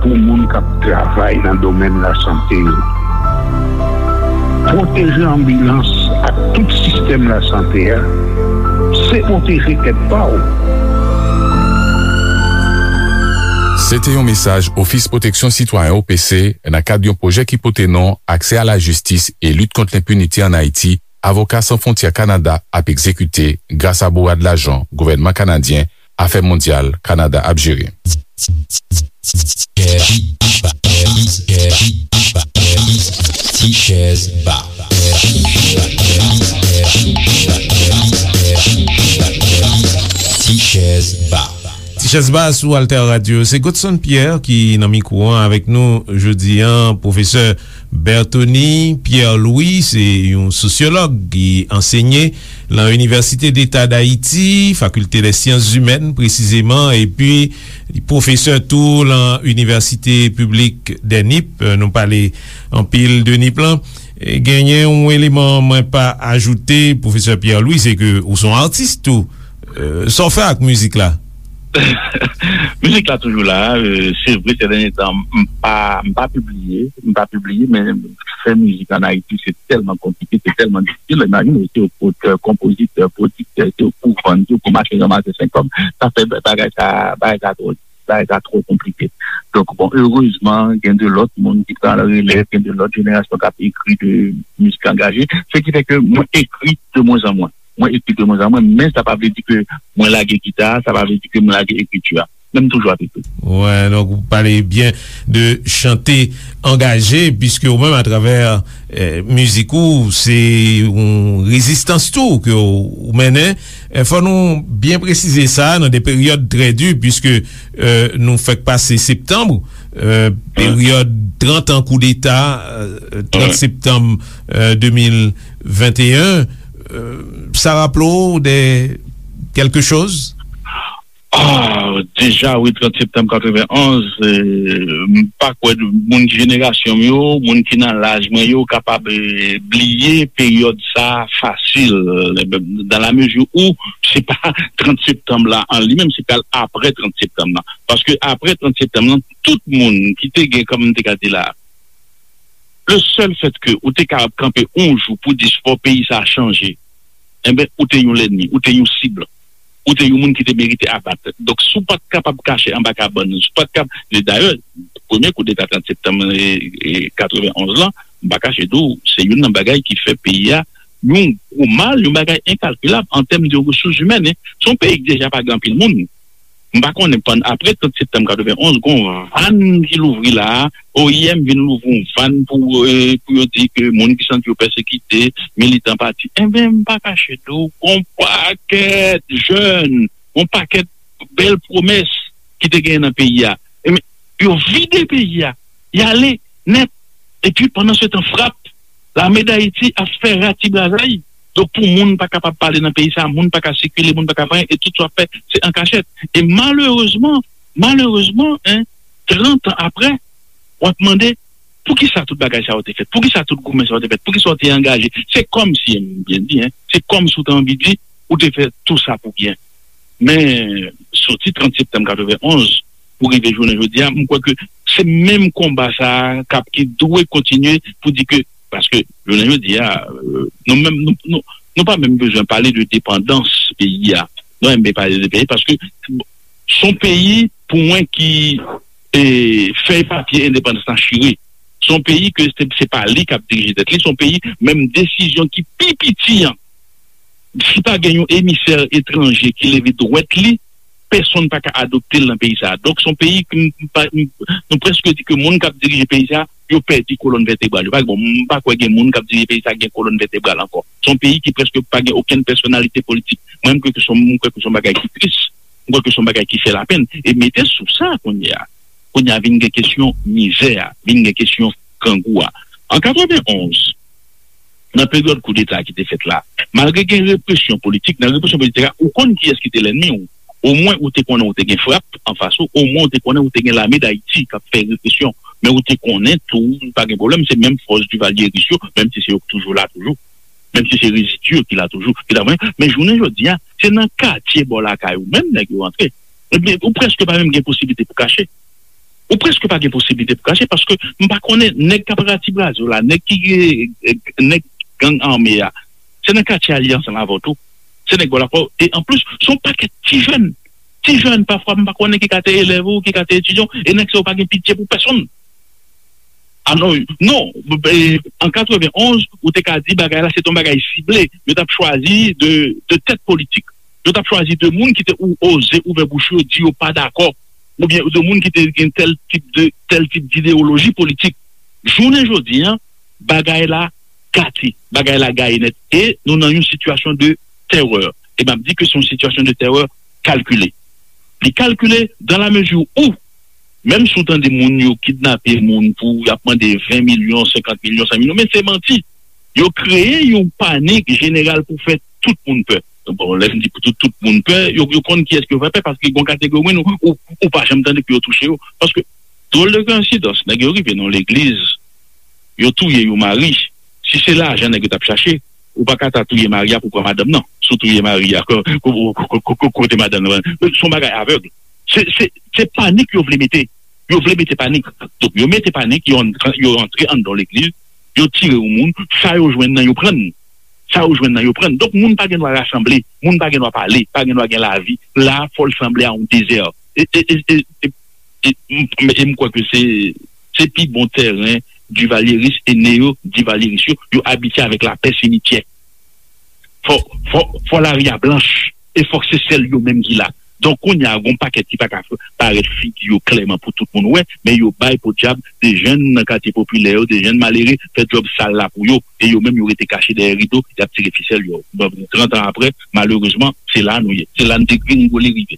pou moun k ap travay nan domèn lasante yo. Pwoteje anbilans ak tout sistèm lasante a, se pwoteje tèt pa w. Se te yon mesaj Ofis Pwoteksyon Sitwayen, O P C, nan kad yon pwojè ki pote non Aksè a la jistis e lit kont lenpinite ann Ayiti, Avoka San Fwontyè Kanada ap egzekite gras a bourad lajan gouvènman kanadyen Afè Mondyal Kanada ap jere. Ti chèz ba. Ti chèz ba. Ti chèz ba sou Alter Radio. Se Godson Pierre ki nan mikwo an avèk nou jodi an. Pwofesè Berthony Pierre Louis se yon sosyològ ki ansenye lan Inivèsite Deta Dayiti, Fakilte dè Syans Imèn presizeman, epi li pwofesè tou lan Inivèsite Piblik dè Nip. Nou pale anpil de Nip lan. E genyen yon eleman mwen pa ajoute, Pwofesè Pierre Louis, se ke ou se yon atis tou. E, sa w fè ak mizik la? Mizik la toujou la. E, se vre, sè dènye tan, m pa, m pa pibliye, m pa pibliye, men fè mizik ann Ayiti, se tèlman konplike, se tèlman difisil. Imajine w, si w otè, konpozitè, pwodiktè, si w pou vann, si w pou mache ranmase senk kòb, sa fè bagay sa, bagay sa twò, bagay sa twò konplike. Donk, bon, erezman, gen de lòt moun ki pran relèv, gen de lòt jenerasyon k ap ekri de mizik angaje. Se ki fè ke mwen ekri de mwen an mwen. Mwen ekri de mwen an mwen, men sa pa vle di ke mwen lage gita a, sa pa vle di ke mwen lage ekriti a. Men m toujou ap ekri. Wè, donk ou pale byen de chante angaje, piske ou menm atravè, eh, mizik ou, se yon rezistans tou ke ou, ou mennen. Eh, fò nou byen presize sa, nan de peryòd trè di, piske, eh, nou fèk pase septanm, eh, peryòd trant an koudeta, eh, trant septanm, eh, de mil venteyen, eh, sa raple w de kèlke choz? Ah, deja, wi, trant septanm katrevenonz, eh, m pa kwè moun ki jenerasyon m yo, moun ki nan laj mwen yo, kapab, eh, bliye peryòd sa fasil, eh, dans la mesure où se pa trant septanm la an li menm, se pral apre trant septanm la. Paske apre trant septanm la, tout moun ki te gen, kòm m te ka di la, le sèl fèt ke ou te kapab kanpe yon jou pou di fò peyi sa a chanje, enben, ou te yon lènmi, ou te yon sib, ou te yon moun ki te merite abat. Donk, si w pa t kapab kache anba kabann, si w pa t kap-, e dayè, premye koudeta trant septanm, e, e, katrevenonz lan, m pa kache di w, se youn nan bagay ki fè peyi a yon gwo mal, yon bagay enkalkilab an tèm de resous imèn, en. Se yon peyi ki deja pa gen anpil moun. M pa konnen, pann-, apre trant septanm katrevenonz, gon vàn ki louvri la a, O I M vin louvri yon vàn pou, eh, pou yo di ke moun ki santi yo pèsekite, militan pati. Enben, m pa kache di w, gon pakèt jèn, gon pakèt bèl pwomès ki te genyen nan peyi a. Enben, yo vide peyi a, y ale nèt. Epi, pandan se tan, frap, Lame Dayiti ap fè ratibrazay. Donk, pou moun pa kapab pale nan peyi sa, moun pa ka sikile, moun pa ka fè anyen, e tout sa w ap fè, se an kachèt. E malerezman, malerezman, en, trant an apre, w ap mande, Poukisa tout bagay sa yo te fèt? Poukisa tout goumen sa yo te fèt? Poukisa w te angaje? Se kòmsi, m byen di, en, se kòmsi w te anvi di, ou te fè tou sa pou byen. Men, soti trant septanm katrevenn onz pou rive jounen jodi a, m kwè ke se menm konba sa a k ap, ki dwe kontinye pou di ke, paske jounen jodi a, euh, nou menm, nou, nou, nou pa menm bezwen pale de depandans peyi a. Nou menm pale de peyi, paske se yon peyi, pou mwen, ki, e, fèy papye endepandans lan chire. Se yon peyi ke se, se pa li k ap dirije tèt li, se yon peyi, menm desizyon ki pi piti an, si pa gen yon emisè etranje ki leve dwèt li, pèsonn pa ka adopte l nan peyi sa a. Donk, se yon peyi ke m, m pa, m, nou prèske di ke moun k ap dirije peyi sa a, yo pèdi kolòn vètebral yo. Pa, bon, m pa kwè gen moun k ap dirije peyi sa a gen kolòn vètebral ankò. Se yon peyi ki prèske pa gen okenn pèsonalite politik. Mwen, m kwè ke se yon, m kwè ke se yon bagay ki tris. M kwè ke se yon bagay ki fè lapenn. E mete sou sa kounye a, kounye a vin gen kesyon mizè a, vin gen kesyon grangou a. An katrevenn onz, nan peryòd koudeta ki te fèt la, malgre gen represyon politik, nan represyon politik la, ou konn kiyès ki te lènmi w. Omwen, ou te konnen ou te gen frap anfas ou, omwen, ou te konnen ou te gen lame d Ayiti k ap fè represyon. Men ou te konnen tou, pa gen pwoblèm, se menm fòs divalyeris yo, menm si se yo k toujou la toujou, menm si se rezidi yo ki la toujou, ki la, men, men jounen jodi a, se nan katye bò lakay ou menm nèg yo rantre. Ebyen, ou prèske pa menm gen posiblite pou kache. Ou prèske pa gen posiblite pou kache, paske m pa konnen nèg k ap rati braz yo la, nèg ki, eh, nèg gang ame a, se nan katye a li ansanm avè w tou. Se nèg bò lakay ou. E anplis, se yon pakèt ti jèn. Ti jèn, pafwa, m pa konnen ki ka te elèv ou, ki ka te etidyan w, e nèg sa yo pa gen pitye pou pèsonn. Alò, non, e, an katrevenn onz, ou te ka di bagay la, se te yon bagay sible. Yo t ap chwazi de, de tèt politik. Yo t ap chwazi de moun ki te ou, oze ouvè bouch yo, di yo pa dakò, oubyen de moun ki te gen tèl tip de, tèl tip didewoloji politik. Jounen jodi a, bagay la gate, bagay la gaye nèt. E nou nan yon sitiyasyon de tèrè. E m ap di ke se yon sitiyasyon de tèrè kalkile. Li kalkile dans la mesure où, menm si w tande moun yo kidnape moun pou y ap mande ven milyon, senkant milyon, san milyon, men se manti. Yo kreye yon panik jeneral pou fè tout moun pè. Bon, lè m di pou tout, tout moun pè, yo, yo konn kiyès ke yo fè pè, paske gen yon kategori moun ou, ou, ou pa janm tande pou yo touche yo. Paske, dwòl de koyensidans, nèg yo rive nan yon legliz, yo touye yon mari. Si se lajan nèg yo t ap chache, ou pa ka ta touye mari a pou pran madanm nan. Si w touye mari a, ko-, ko-, kote madanm nan? Se yon bagay avèg. Se, se, se panik yo vle mete. Yo vle mete panik. Donk, yo mete panik, yo, yo rantre anndan legliz, yo tire yon moun, sa yo jwenn nan, yo pran. Sa yo jwenn nan, yo pran. Donk, moun pa gen dwa rasanble, moun pa gen dwa pale, pa gen dwa gen lavi. La, fò l sanble a yon dezè. E, e, e, e, e, e, m, e m kwè ke se, se pi bon tèren divalyeris e neyo-divalyeris yo, yo abitye avèk lapè simityè. Fò, fò, fò lari a blanch, e fòk se sèl yo menm ki la. Donk, kounye a, gon pakèt ki pa ka f-, parèt figi yo klèman pou tout moun wè, men yo bay podyab de jèn nan katye popilè yo, de jèn malere, fè djòb sal la pou yo, e yo menm yo rete kache dèyè rido, y ap tire fisèl yo. Bon, trant an apre, malerezman, se la nou ye. Se la n degringole rive.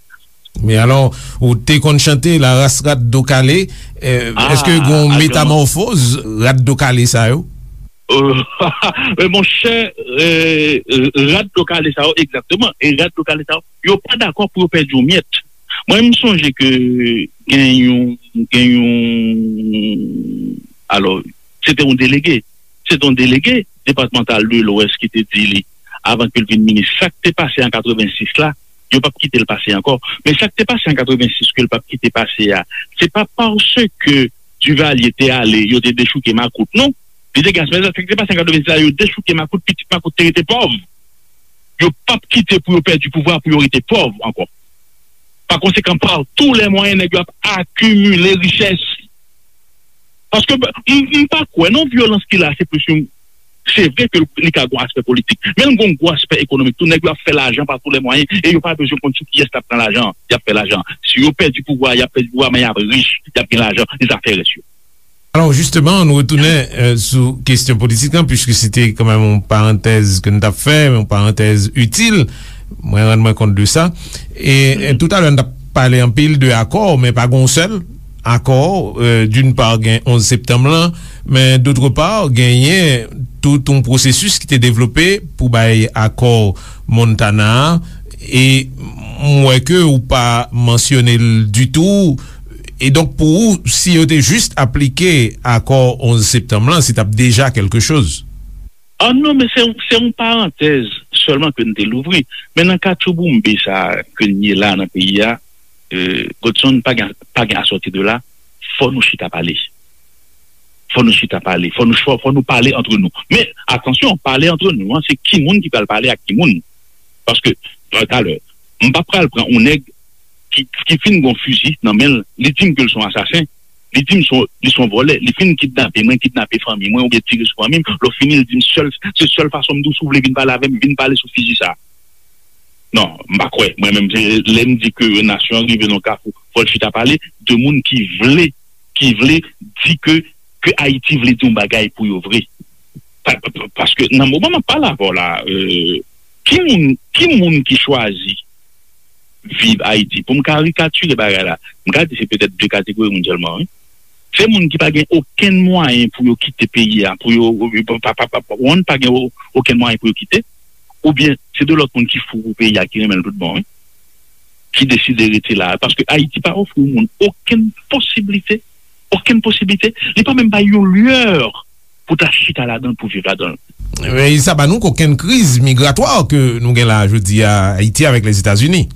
Men alò, ou te konn chante La race rat do kale, eh, èske gon metamòfoz rat do kale sa yo? Euh, men monchè, euh, rat do kale sa yo, egzakteman. E rat do kale sa yo, yo pa dakò pou yo pèdi yon myèt. Mwen, m sonje ke gen yon, gen yon, alò, se te yon delege. Se te yon delege depatmantal de Lwès ki te di li, avan ke l vin minis, sa k te pase an katrevensis la, yo p ap kite l pase ankò. Men sa k te pase an katrevensis ke l p ap kite pase a, se pa paske Duvalier te ale, yo te dechouke makout, non. Li te gen asmèl sa, sa k te pase an katrevensis la, yo dechouke makout, pitit makout te rete pòv. Yo p ap kite pou yo pèdi pouvwa, pou yo rete pòv ankò. Pa konsekan, pa tou lè mwayen, nèg yo ap akimile richès. Paske m, m pa kwè, non, vyolans ki la, se plis yon, se vre ke li ka gon aspè politik, men l gon gwo aspè ekonomik tou. Nèg yo ap fè lajan pa tou lè mwayen, e yo pa bezwen konn sou kiyès l ap pran lajan an. Y ap fè lajan. Si yo pèdi pouvwa, y ap pèdi pouvwa, men y ap rich, y ap gen lajan, e zafè rès yo. Alò, jisteman, nou retounen, eh, sou kesyon politik lan, piske se te kanmenm yon parantèz ke n t ap fè, yon parantèz itil. Mwen rann mwen kont de sa. E, eh, toutalè, n t ap pale anpil de akò, men pa gen yon sèl akò. Eh, d'une part, gen onz septanm lan, men d'autre part, genyen tout yon pwosesis ki te devlope pou bay akò Montana a. E m wè ke ou pa mansyone l ditou. E donk, pou ou, si yo te jis aplike akò onz septanm lan, se t ap deja kèlke choz. Ah non, men se, se yon parantèz sèlman ke n te louvri. Men nan katchouboumbe sa a ke n ye la nan peyi a, euh, Godson, pa gen, pa gen asòti de la, fò nou chita pale. Fò nou chita pale, fò nou, fò, fò nou pale antre nou. Men, atansyon, pale antre nou an, se ki moun ki pral pale ak ki moun. Paske, talè, m pa pral pran yon nèg ki, ki fin gon fizi nan men l, li di m ke l se yon asasen, li di m se yon, li se yon vòlè, li fin kidnape mwen, kidnape fanmi mwen, oubyen tire sou fanmi m, lè fini, li di m sèl, se sèl fason m di w, si w vle vin pale avè m, vin pale sou fizi sa a. Non, m pa kwè. Mwen menm, se lè m di ke nasyon an rive nan kafou, fò l chita pale de moun ki vle, ki vle di ke, ke Ayiti vle di yon bagay pou yo vre. Pa, pa, pa, paske nan moman m ap pale avè w la, euh, ki moun, ki moun ki chwazi viv Ayiti? Pou m karikatire bagay la, m ka di se petèt de kategori moun sèlman, wi. Se moun ki pa gen okenn mwayen pou yo kite peyi a, pou yo, pa, pa, pa, pa, pa gen o-, okenn mwayen pou yo kite, oubyen se de lòt moun ki fou pou peyi a, ki renmen l tout bon, wi, ki deside rete la. Paske Ayiti pa ofri yon moun okenn posiblite, okenn posiblite. Li pa menm bay yon lyè pou ta chita ladan l, pou viv ladan l. Men sa ba nou kokenn kriz migratwa ke nou gen la jodi a, Ayiti avèk Lèzetazini.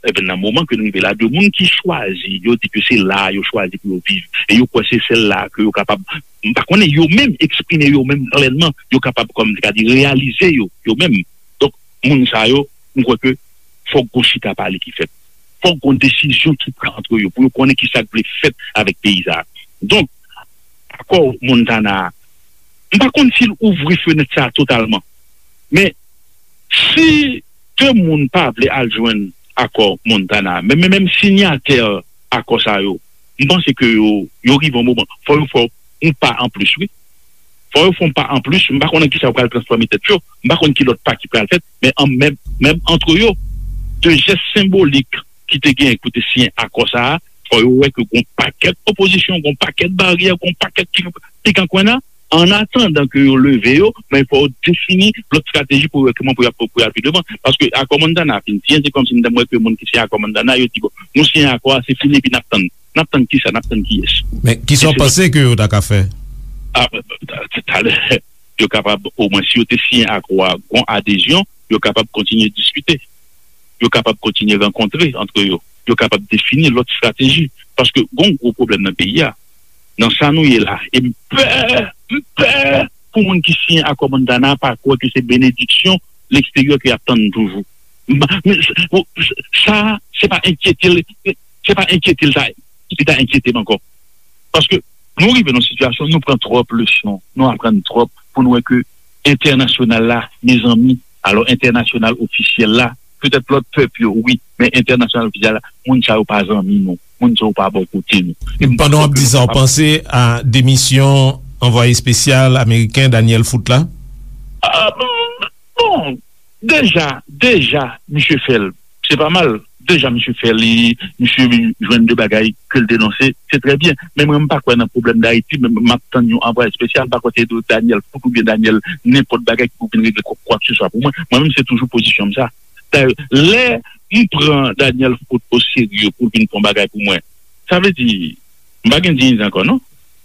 Ebyen, nan moman ke nou rive la, de moun ki chwazi, yo di ke se la a yo chwazi pou yo viv, e yo kwè se sèl la a ke yo kapab, m pa konnen, yo menm eksprime yo menm plènman, yo kapab, kòm m te ka di, reyalize yo, yo menm. Donk, moun sa yo, m kwè ke fòk gon chita pale ki fèt. Fòk gon desizyon ki pran antre yo, pou yo konnen ki sa k vle fèt avèk peyi sa a. Donk, akò Montana a, m pa konn si l ouvri fenèt sa a totalman. Men, si de moun pa vle al jwenn akò Montana, men, men menm sinyatè akò sa yo, m panse ke yo, yo rive yon moman, fò yo fè yon pa anplis, wi. Fò yo fè yon pa anplis, m pa konn nan kisa yo pral transfòme tèt yo, m pa konn ki lòt pa ki pral fèt, men an, menm, menm antre yo, de jès senbolik ki te genyen pou te siyen akò sa a, fò yo wè ke gon pakèt opozisyon, gon pakèt baryè, gon pakèt ki, ki kan kwen nan, an atandan ke yo leve yo, men fò yo defini lòt estrateji pou yo wè kòman pou y ap, pou y al pi devan. Paske akò Montana fin siyen, se kòmsi m t ap wè ke moun ki siyen akò Montana, yo di, bon, nou siyen akò a, se fini, epi n ap tann. N ap tann kisa? N ap tann kiyès? Men kisa w panse ke yo ta ka fè? Ah, talè, yo kapab, omwen, si yo te siyen akò a, gon adezyon, yo kapab kontinye diskite. Yo kapab kontinye rankontre antre yo. Yo kapab defini lòt estrateji. Paske gon gwo pwoblèm nan peyi a. Nan sa nou ye la. E m pè, m pè pou moun ki siyen akò Montana pa kwè ke se benediksyon leksteryè ke y ap tann toujou. M pa, men, s-, w-, s-, sa, se pa enkyete l, se pa enkyete l sa, ki ta enkyete m ankò. Paske nou rive nan sitiyasyon, nou pran twòp leson, nou aprann twòp pou nou wè ke entènasyonal la, mezanmi, alò entènasyonal ofisyèl la, petèt lòt pèp yo, wi, men entènasyonal ofisyèl la, moun sa yo pa zanmi nou, moun sa yo pa bò kote nou. E pandan w ap di sa, w panse a demisyon anvwaye espesyal ameriken Daniel Foote la? Ah, bon, bon, deja, deja, misye fè l. Se pa mal. Deja, misye fè li, misye jwenn de bagay ke l denonse, se trè byen. Men mwen, m pa kwè nan pwoblèm Dayiti, men m ap tann yon anvwaye espesyal, m pa kwè se Daniel Foote oubyen Daniel nenpòt bagay ki pou vin regle kwa, kwa ke se swa pou mwen. Mwen menm, se toujou pozisyon m sa. Dayè, lè m pran Daniel Foote oserye pou l vin fè yon bagay pou mwen, sa vle di, m pa gen diyite ankò, non?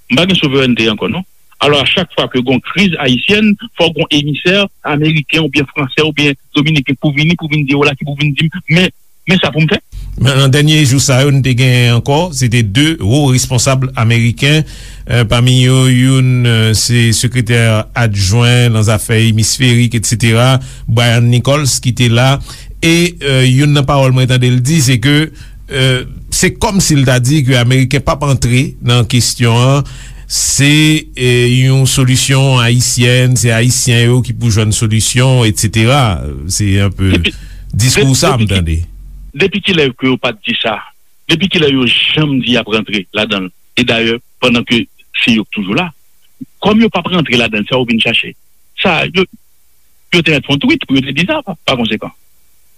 M pa gen souverènte ankò, non? Alò, a chak fwa ke gon kriz ayisyèn, fò gon emisè ameriken oubyen fransè oubyen dominiken pou vini, pou vin di, vwala ki pou vin di m, men, men sa pou m fè. Men nan dènye jou sa yo, n te gen ankò, se te de wo responsab ameriken, euh, pami yo, youn, euh, se sekretè adjwen nan zafè emisferik, etsetera, Brian Nichols, ki te la, e, euh, youn nan pawòl mwen tande l di, se ke, euh, se kòmsi l ta di ke Ameriken p ap antre nan kesyon an, se, euh, yon solisyon ayisyèn, se Ayisyen yo ki pou jwenn solisyon, etsetera. Se anpe diskou sa m tande. Depi kilè ke yo pa t di sa? Depi kilè yo janm di y ap rantre ladan l? E dayè, pandan ke se yo k toujou la, kòm yo p ap rantre ladan l, sa yo vin chache? Sa, yo, yo te mèt fè yon tweet pou yo te di sa, pa, pa konsekan.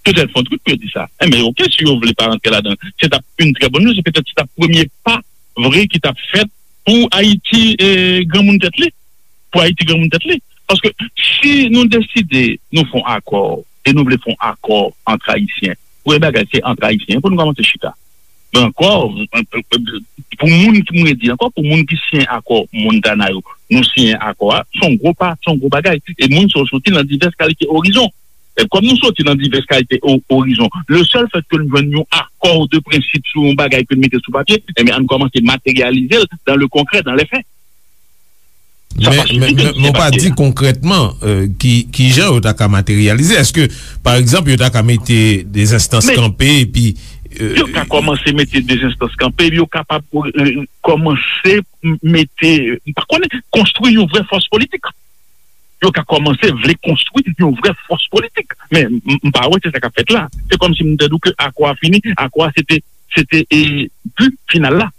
Yo te mèt fè yon tweet pou yo di sa. Enben, oke, si yo vle pa rantre ladan l, se t ap yon trè bòn nouvèl, se petèt se t ap premye pa vre ki t ap fèt pou Ayiti, e, granmoun tèt li. Pou Ayiti granmoun tèt li. Paske si nou deside nou fè yon akò, e nou vle fè yon akò ant Ayisyen, premye bagay, se ant Ayisyen pou nou kòmanse chita. Men ankò, pou moun ki, mwen di ankò, pou moun ki siyen akò Montana yo, nou siyen akò a, se yon gwo pa, se yon gwo bagay. E moun sa yo soti nan divès kalite orizon. E kòm nou soti nan divès kalite o- orizon, le seul fait que nou jwenn yon akò de prensip sou yon bagay ke nou mete sou papye, ebyen, ann kòmanse materyalize l dans le concret, dans les faits. Sa pa sifi ke nou siyen papye a. Men, men, men w pa di konkrètman, euh, ki, ki jan yo ta ka materyalize. Èske, pa egzanp, yo ta ka mete de zenstans kanpe epi, euh, yo ka kòmanse mete de zenstans kanpe, epi yo kapab, euh, kòmanse m- mete, m pa konnen, konstwi yon vrè fòs politik. Yo ka kòmanse vle konstwi yon vrè fòs politik. Men m- m pa wè se sa k ap fèt la. Se kòmsi m te di w ke akò a fini, akò a se te, se te, e, bi final la.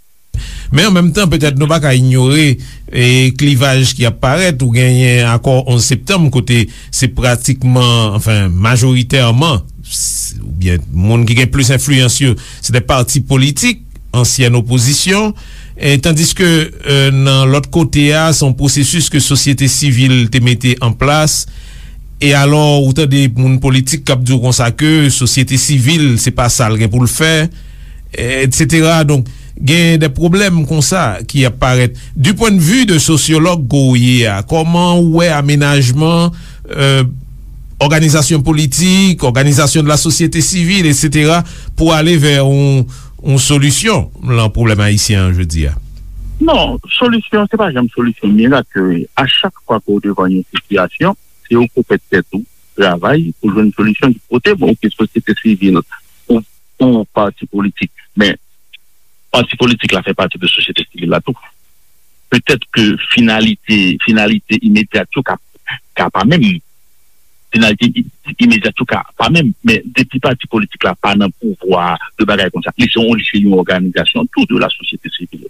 Men an menm tan, petèt nou pa ka inyore, e, klivaj ki ap parèt. Ou genyen akò onz septanm, kote se pratikman, anfen, majoritèman, s- oubyen moun ki gen plis enfliyans yo, se de pati politik, ansyèn opozisyon, e tandiske, e, nan lòt kote a, se yon pwosesis ke sosyete sivil te mete an plas. E alò, ou tande moun politik k ap di w konsa ke sosyete sivil, se pa sa l gen pou l fè, etsetera. Donk, gen de pwoblèm konsa ki ap parèt. Du point de vue de sosyològ ke w ye a, kòman ou wè amenajman, euh, òganizasyon politik, òganizasyon de la sosyete sivil, etsetera, pou ale vè yon, yon solisyon lan pwoblèm ayisyen an jodi a? Non, solisyon, se pa janm solisyon mirak ke a chak fwa ke w devan yon sitiyasyon, se ou k ou pèt tèt ou, travay pou jwenn solisyon ki pote bon, ou ke sosyete sivil, ou, ou pati politik. Men, pati politik la fè pati de sosyete sivil la tou. Petèt ke finalite, finalite imedyat yo ka, ka pa menm. Finalite i- imedyat yo ka pa menm. Men depi pati politik la pa nan pouvwa de bagay konsa, li se yon, li se yon òganizasyon tou de la sosyete sivil.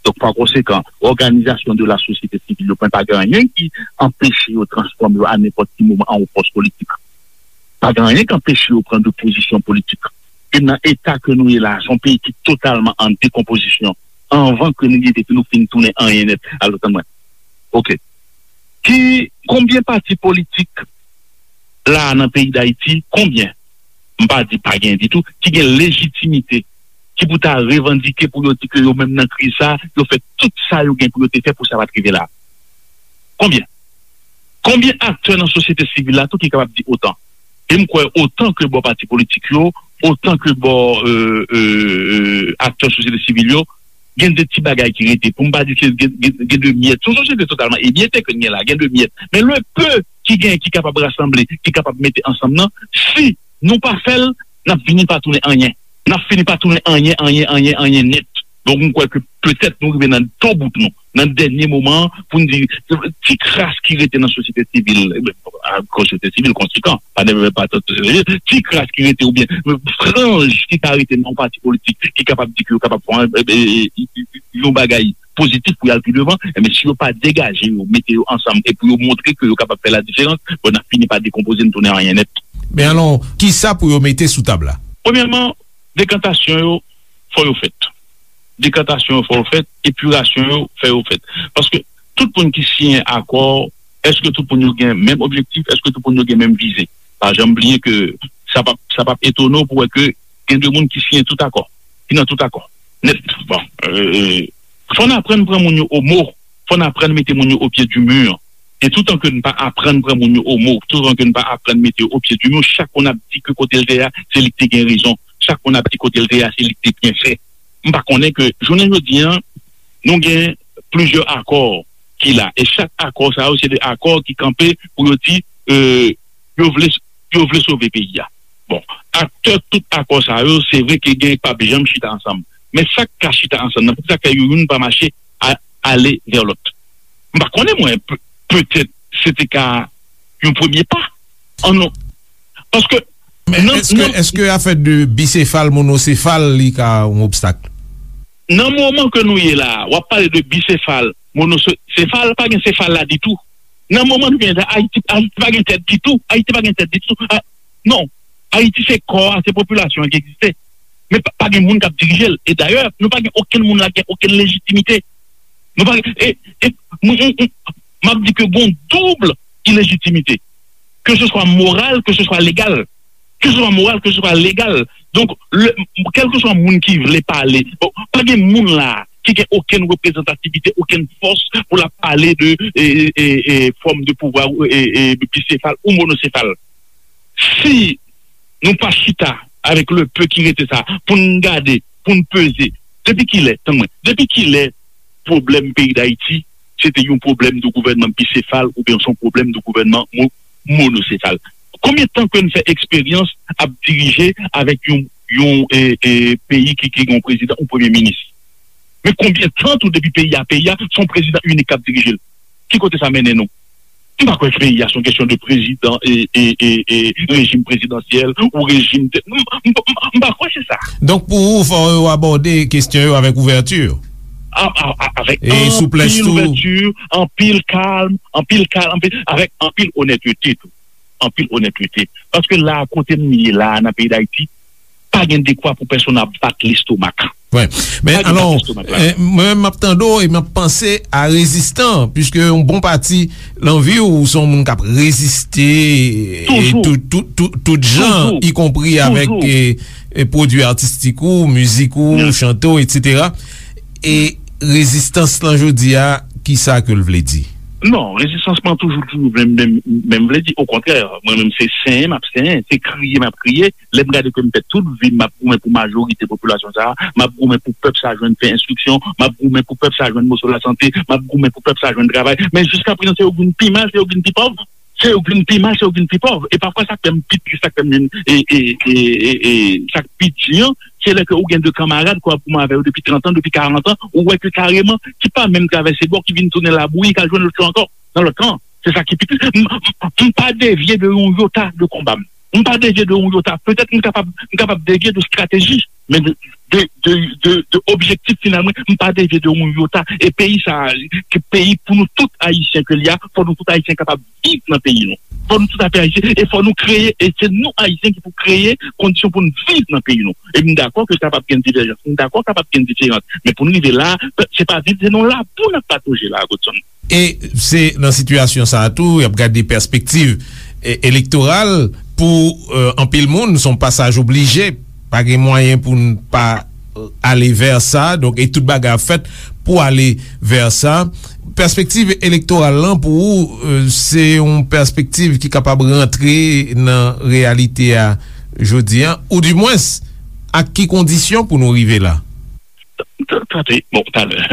Donk, pa konsekan, òganizasyon de la sosyete sivil yo, pa gen anyen ki anpeche yo transfòme yo a nenpòt ki moman an yon fòs politik. Pa gen anyen ki anpeche yo pran de pozisyon politik. E nan eta ke nou ye la, se yon peyi ki totalman an dekonpozisyon. Anvan ke nou rive, ke nou fin tounen anyen nèt. Alò, tann mwen. Oke. Ki, konbyen pati politik la nan peyi Dayiti, konbyen, m pa di pa gen ditou, ki gen lejitimite, ki pou ta revandike pou yo di ke yo menm nan kriz sa, yo fè tout sa yo gen pou yo te fè pou sa pa t rive la? Konbyen? Konbyen aktè nan sosyete sivil la tou ki kapab di otan? E m kwè otan ke bò pati politik yo, otan ke bò, euh, euh, euh, aktè sosyete sivil yo, gen de ti bagay ki rete. Pou m pa di ke gen, gen, gen de myèt. Se yon sosyete totalman emyete ke n gen la, gen de myèt. Men le peu ki gen, ki kapab rasanble, ki kapab mete ansanm nan, si nou pa fè l, n ap vini pa tounen anyen. N ap fini pa tounen anyen, anyen, anyen, anyen nèt. Donk, m kwè ke petèt nou rive nan to bout nou, nan dènye moman an, pou n di, ti kras ki rete nan sosyete sivil, eh ben, a, sosyete sivil konsekan, pa nève pa tout, eh, ti kras ki rete oubyen franj ki ka rete nan yon pati politik ki kapab di ke yo kapab fè yon, eh, eh, eh, yon bagay pozitif pou y al pi devan, eh ben, si yo pa degaje yo, mete yo ansanm e pou yo montre ke yo kapab fè la diferans, bon, n ap fini pa dekonpoze n tounen anyen nèt. Men alò, kisa pou yo mete sou tab la? Premyèman, dekantasyon yo, fò yo fèt. Dekantasyon yo, fò yo fèt. Epirasyon yo, fè yo fèt. Paske tout moun ki siyen akò, èske tout moun yo gen menm objektif? Èske tout moun yo gen menm vize? Pa janm bliye ke sa p ap, sa p ap etone w pou wè ke gen de moun ki siyen tout akò, ki nan tout akò. Nèt. Bon, euh, fò n aprann pran moun yo o mo. Fò n aprann mete moun yo o pye di mi. E toutan ke n pa aprann pran moun yo o mo, toutan ke n pa aprann mete yo o pye di mi, chak moun ap di ke kote l te ye a, se li ki te gen rezon. Chak moun ap di kote l te ye a, se li ki te byen fè. M pa konnen ke jounen jodi a, nou gen plizyè akò ki la. E chak akò sa yo, se de akò ki kanpe pou yo di, euh, yo vle, yo vle sove peyi a. Bon, aktè tout akò sa yo, se vre ke gen k p ap janm chita ansanm. Men sa k ka chita ansanm nan, poukisa k fè yo youn pa mache a, ale vè lòt? M pa konnen mwen, pe- petèt se te ka yon premye pa. An non. Paske Men nan, èske, nan, èske afè de bisefal, monosefal, li ka yon obstak? Nan moman ke nou ye la, w ap pale de bisefal, monosefal, pa gen sefal la ditou. Nan moman nou gen la, Ayiti, Ayiti pa gen tèt ditou. Ayiti pa gen tèt ditou. A, non. Ayiti se kò a, se popilasyon an ki egziste. Men pa, pa gen moun k ap dirije l. E dayè, nou pa gen okenn moun la ki gen okenn lejitimite. Nou pa gen, e, e, m, m, m, m ap di ke gon doub ilejitimite. Ke se swa moral, ke se swa legal. Ke se swa moral, ke se swa legal. Donk, le, kèlkeswa moun ki vle pale, bon, pa gen moun la ki gen okenn reprezantativite, okenn fòs pou l ap pale de, e, e, e, fòm de pouvwa, e, e, bisefal ou monosefal. Si nou pa chita avèk le peu ki rete sa, pou n gade, pou n peze, depi kilè, tann mwen, depi kilè pwoblèm peyi Dayiti, se te yon pwoblèm de gouvènman bisefal oubyen se yon pwoblèm de gouvènman mo-, monosefal? Konbyen tan ke n fè eksperyans ap dirije avèk yon, yon, e, e, peyi ki, ki gen yon prezidan, yon premye minis? Men konbyen tan tou depi peyi a, peyi a, se yon prezidan inik k ap dirije l? Ki kote sa mennen nou? M pa kwè ke peyi a se yon kesyon de prezidan e, e, e, e rejim prezidansyèl ou rejim de, m, m, m, m pa kwè se sa. Donk, pou ou, fò yo abòde kesyon yo avèk ouvèti. A, a, a, avèk e souplès anpil tou. Ouvèti, anpil kalm, anpil kalm, anpil, avèk anpil onètete tou. Anpil onètete. Paske la, kote m ye la, nan peyi Dayiti, pa gen dekwa pou pèsonn ap bat lestomak. Wi. Men alò, eh, mwen menm m ap tande w e m ap panse a rezistan, piske yon bon pati nan vi w, ou se yon moun k ap reziste, e tout, tout, tout, tout jan, ikonpri avèk, eh, eh, pwodui atistik ou, mizik ou, chante w, etsetera. E rezistans lan jodi a, kisa ke l vle di? Non, rezistans mwen toujou, toujou menm, menm, menm vle di, okontrè, mwen menm se senyen m ap senyen, se kriye m ap kriye. Lè m gade ke m fè tout vi m, m ap goumen pou majorite popilasyon sa a, m ap goumen pou pèp sa a jwenn pen, enstriksyon, m ap goumen pou pèp sa a jwenn moso lasante, m ap goumen pou pèp sa a jwenn travay. Men jiska prezan, se yo k vin pi mal, se yo k vin pi pòv. Se yo k vin pi mal, se yo k vin pi pòv. E pafwa, sa k fè m pi tris, sa k fè m vin, e, e, e, e, e, sa k pi di an, se lè ke ou gen de kanmarad ke w ap goumen avè yo depi trant an, depi karant an, ou wè ke kareman, ki pa menm travèse bò, ki vin tounen labouyi, k al jwenn lòt yo ankò, nan lòt kan. Se sa ki pi tris. M, m, m pa devye de yon yota de konba m. M pa devye de yon yota. Petèt m kapab, m kapab devye de estrateji, men de, de, de, de, de objektif final mwen, m pa devye de yon yota. E peyi sa a, ke peyi pou nou tout Ayisyen ke li a, fò nou tout Ayisyen kapab viv nan peyi nou. Fò nou tout Ayisyen, e fò nou kreye, e se nou Ayisyen ki pou kreye kondisyon pou nou viv nan peyi nou. E m dakò ke kapab gen divèjans, m dakò kapab gen diferans, men pou nou rive la, se pa viv, se nan labou n ap patoje la, Godson. E se nan sitiyasyon sa a tou, y ap gade pèspektiv, e, elektoral pou, e, anpil moun, se yon pasaj oblije. Pa gen mwayen pou n pa, e, ale vè sa. Donk, e tout bagay ap fèt pou ale vè sa. Pèspektiv elektoral lan, pou ou, e, se yon pèspektiv ki kapab rantre nan reyalite a jodi a, oudimwens, ak ki kondisyon pou nou rive la? T-, t-, tande, bon, talè.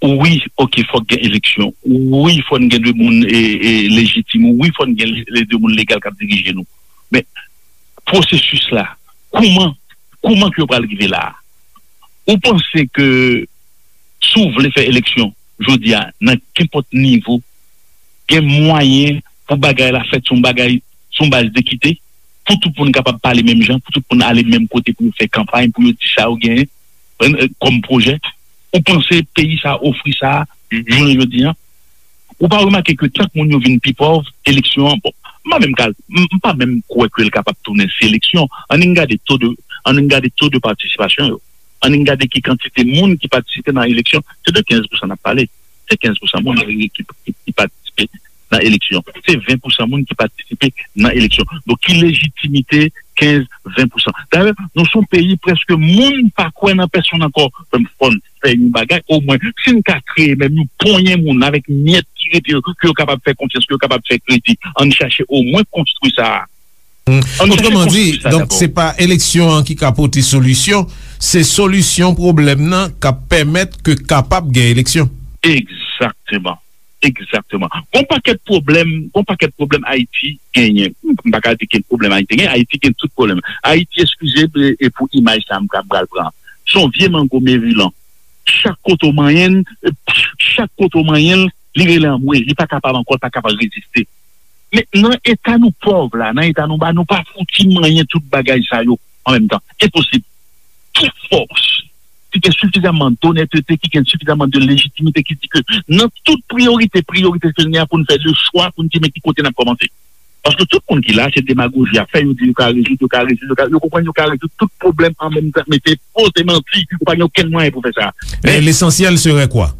Wi, oke, fòk gen eleksyon. Wi, fò n gen de moun, e, e, lejitim. Wi, fò n gen le, le de moun legal k ap dirije nou. Men, pwosesis la, kouman, kouman ke yo pral rive la a? Ou panse ke si w vle fè eleksyon jodi a, nan kenpòt nivo, gen mwayen pou bagay la fèt sou yon bagay, sou yon baz dekite, pou tout moun kapab pale menm jan, pou tout moun ale menm kote pou yo fè kanpay, pou yo di sa yo genyen, e, e, kòm pwojè? Ou panse peyi sa a ofri sa a, jounen jodi a? Ou pa remake ke tank moun yo vin pi pòv, eleksyon an, bon, m pa menm ka, m, m pa menm kwè ke l kapab tounen seleksyon. Ann gade to de, ann gade to de patisipasyon yo. Ann gade ki kantite moun ki patisipe nan eleksyon. Se de kenz pousan n ap pale. Se kenz pousan moun ki, ki, ki, ki patisipe nan eleksyon. Se ven pousan moun ki patisipe nan eleksyon. Donk, ki lejitimite kenz, ven pousan? Dayè, nou se yon peyi prèske moun pa kwè nan pèsonn ankò. Fò n fè yon bagay, omwen, si n ka kreye menm yon ponyen moun avèk myèt ki rete yo, ke yo kapab fè konfyans, ke yo kapab fè kredi, ann chache omwen konstwi sa a. Otreman di, donk, se pa eleksyon an ki ka pote solisyon, se solisyon pwoblèm nan k ap pèmèt ke kapab gen eleksyon. Egzakteman. Egzakteman. Gon pakèt pwoblèm, gon pakèt pwoblèm Ayiti genyen. M pa ka di gen pwoblèm Ayiti genyen, Ayiti gen tout pwoblèm. Ayiti, eskize m, e, e pou imaj sa a m ka pral pran. Se yon vye mango Maryland. Chak kote w manyen l, e, chak kote w manyen l, li rele anmwe, li pa kapab ankò, li pa kapab reziste. Men nan eta nou pòv la, nan eta nou ba, nou pa fouti manyen tout bagay sa yo an menm tan. Enposib. Tout fòs ki gen sifizamman donètete, ki gen sifizamman de lejitimite, ki di ke nan tout priyorite, priyorite ke nou gen an pou n fè de chwa, pou n di men ki kote n ap kòmanse. Paske tout moun ki la, se demagoji y ap fè, yo di yo ka rezoud, yo ka rezoud, yo ka, yo konprann yo ka rezoud tout pwoblèm an menm tan, men se fo, se manti, ou pa gen okenn mwayen pou fè sa. Men, lesansyèl serait quoi?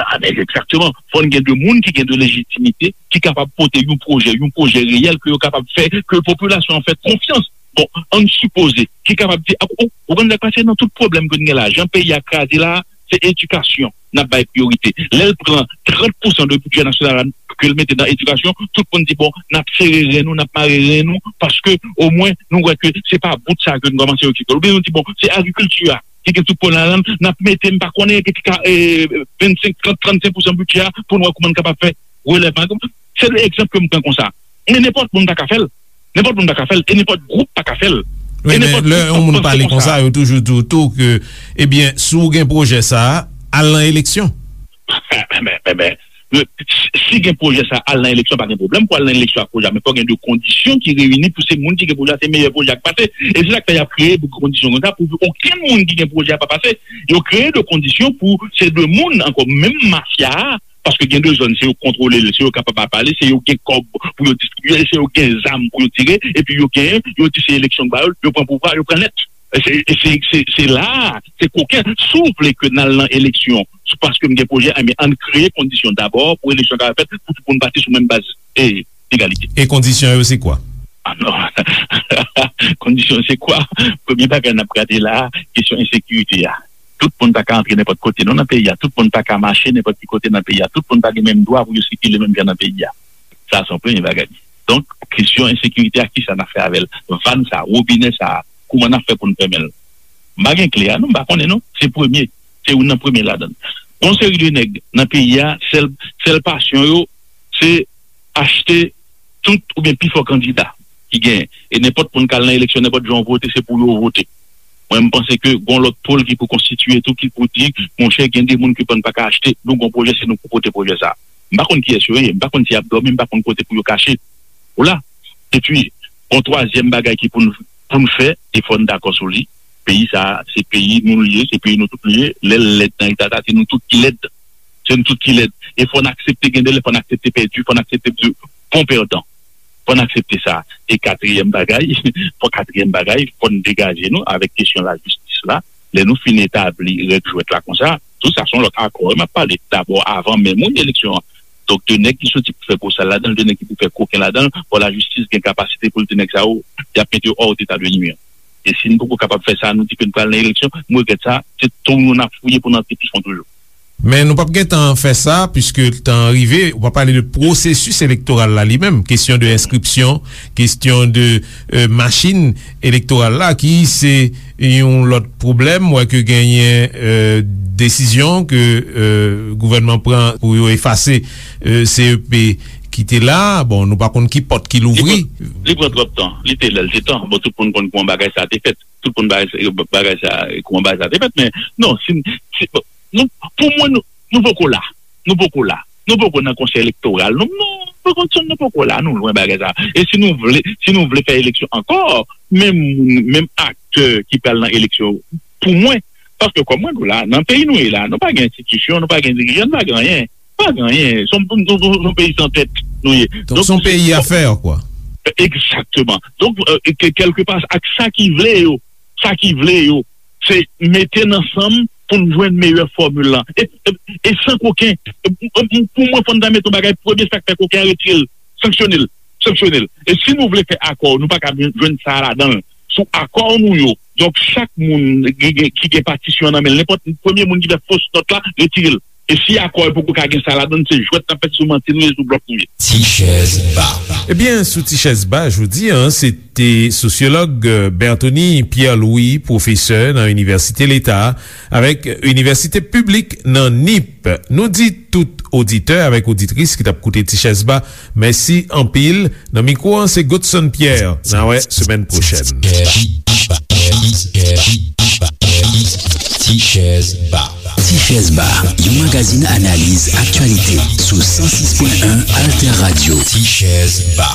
A, men egzakteman. Fò n gen de moun ki gen de lejitimite, ki kapab pote yon pwojè, yon pwojè reyèl ke yo kapab fè, ke popilasyon an fè konfyans. Bon, ann sipoze, ki kapab di, ou, ou konn sa k pase nan tout pwoblèm ke n gen la, jan peyi a kraze la, se edikasyon n ap bay priyorite. Lè l pran trant pousan de bidjè nasyonal la, ke l mete nan edikasyon, tout moun di, bon, n ap sere ren nou, n ap mare ren nou, paske omwen nou wè ke se pa bout sa ke n kòmanse okipe. Oubyen nou di, bon, se agrikilti a ki gen tout pwoblèm ladan l, n ap mete, m pa konnen, ki ka, e, vennsenk, trant, trannsenk pousan bidjè a pou n wè kouman n kapab fè relèvman. Se de egzanp ke m pran konsa. Men nenpòt moun pa ka fè l. Nenpòt moun pa ka fè l. E nenpòt gwoup pa ka fè l. Wi, men lè yon moun pale konsa, yo toujou di w tou ke, ebyen, si w gen pwojè sa a, al nan eleksyon. Men, men, men, si gen pwojè sa, al nan eleksyon, pa gen pwoblèm pou al nan eleksyon ak pwojè a, men fò gen de kondisyon ki reyini pou se moun ki gen pwojè a, se meyè pwojè a k pase. E se sa k fè y ap kreye de kondisyon konsa pou okenn moun ki gen pwojè a pa pase. Yo kreye de kondisyon pou se de moun ankò, menm mafya a, paske gen de zòn, se yo k kontwole l, se yo k kapab ap pale, se yo k gen kòb pou yo distribye, se yo k gen zam pou yo tire, epi yo genyen, yo di se eleksyon k ba yo, yo pran pouvwa, yo pran nèt. Se, se, se, se la a, se koken. Si w vle ke n al nan eleksyon, se paske m gen pwojè, enben, ann kreye kondisyon dabò pou eleksyon kapab fèt, pou tout moun pati sou menm baz, e, egalite. E kondisyon yo se kwa? Ah non. Kondisyon se kwa? Premye bagay n ap gade la a, kesyon ensekirite a. Tout moun pa ka antre nenpòt kote non nan peyi a. Tout moun pa ka mache nenpòt ki kote nan peyi a. Tout moun pa gen menm dwa pou yo sikile menm jan nan peyi a. Sa se yon premye bagay. Donk, kesyon ensekirite a, kisa n ap fè avè l? Vàn sa, wobinè sa, kouman n ap fè pou n fèmen l? M pa gen kle a non, m pa konnen non. Se premye, se youn nan premye ladan l. Gon seri de nèg nan peyi a, sèl, sèl pasyon yo, se achte tout oubyen pifò kandida ki genyen. E nenpòt moun k al nan eleksyon, nenpòt jan w vote, se pou yo vote. Mwen, m panse ke gon lòt pòl ki pou konstitiye tou, ki pou di, monchè, gen de moun ke bann pa ka achte, nou gon pwojè, se nou pou pote pwojè sa a. M pa konn kiyès yo ye, m pa konn si y ap dòmi, m pa konn kote pou yo kache. Ou la. Epi, gon twazyèm bagay ki pou n, pou n fè, e fò n dakò sou li. Peyi sa a, se peyi nou l ye, se peyi nou tout li ye. Lè l lèd nan eta sa, se nou tout ki lèd. Se nou tout ki lèd. E fò n aksepte, gen de lè fò n aksepte pèdi, fò n aksepte pran pèdan. Fò n aksepte sa. E katriyèm bagay, fò katriyèm bagay, fò n degaje nou avèk kesyon lajistis la. Lè nou fin etabli règ jwèt la konsa, tou sa se yon lòt akò wi m ap pale. Dabò, avan menm wi eleksyon an. Donk, de nèg ki soti pou fè bosal ladan l, de nèg ki pou fè koken ladan l, fò lajistis gen kapasite pou l di nèg sa yo, y ap mete yo hors d'état de nuire. E si n poko kapab fè sa, nou di ke n pral nan eleksyon, m regrèt sa, se twou nou n ap fouye pou n antre pi fon toujou. Men nou p ap gentan fè sa, piske tan an rive, ou pa pale de pwosesis elektoral la li menm, kesyon de enskripsyon, kesyon de, e, machin elektoral la, ki se yon lòt pwoblèm. M wè ke genyen, e, desizyon ke, e, gouvènman pran pou yo efase, e, C E P ki te la. Bon, nou pa konn ki pòt ki louvri. Li pran, li pran twòp tan. Li te lè l te tan. Bon, tout moun konn kouman bagay sa a te fèt. Tout moun bagay sa, bagay sa, kouman bagay sa te fèt, men non, si, si, bon, nou, pou mwen, nou, nou poko la. Nou poko la. Nou poko nan konsèy elektoral. Nou, nou, nou konn nou poko la, nou lwen bagay sa. E si nou vle, si nou vle fè eleksyon ankò, menm moun, menm aktè ki pral nan eleksyon, pou mwen, paske kòm mwen di w la, nan peyi nou ye la, nou pa gen enstitisyon, nou pa gen dirijan, nou pa gen anyen. Pa gen anyen. Se yon, se yon, se yon peyi san tèt nou ye. Donk, se yon peyi a fè, kwa. Egzakteman. Donk, e, ke, kèlkepa, ak sa ki vle yo, sa ki vle yo, se mete n ansanm pou n jwenn meyè fòmil lan. E, e, e san koken, e, e, pou mwen, fò n ta mete yon bagay premye, sa k fè koken an, retire l, sanksyone l, sanksyone l. E si nou vle fè akò, nou pa ka jwenn sa a ladan l. Sou akò nou yo. Donk, chak moun ki gen, ki gen patisyon an nan men l, nenpòt premye moun ki fè fos nòt la, retire l. E si akò yo poko ka gen sa ladan l, se jwèt n ap fè, se sou manti nou ye, sou blòf nou ye. Ti chèz ba. Ebyen, sou Ti chèz ba jodi a, se te sosyològ, e, Berthony Pierre Louis, pwofesè nan Inivèsite Leta avèk Inivèsite Piblik nan Nip. Nou di tout oditè avèk oditris ki t ap koute Ti chèz ba, mèsi anpil. Nan mikwo an, se Godson Pierre. N a wè semèn pwochèn. Ti chèz ba. Ti chèz ba, yon magazin analiz aktyalite sou san sis pwen en Alter Radio. Ti chèz ba.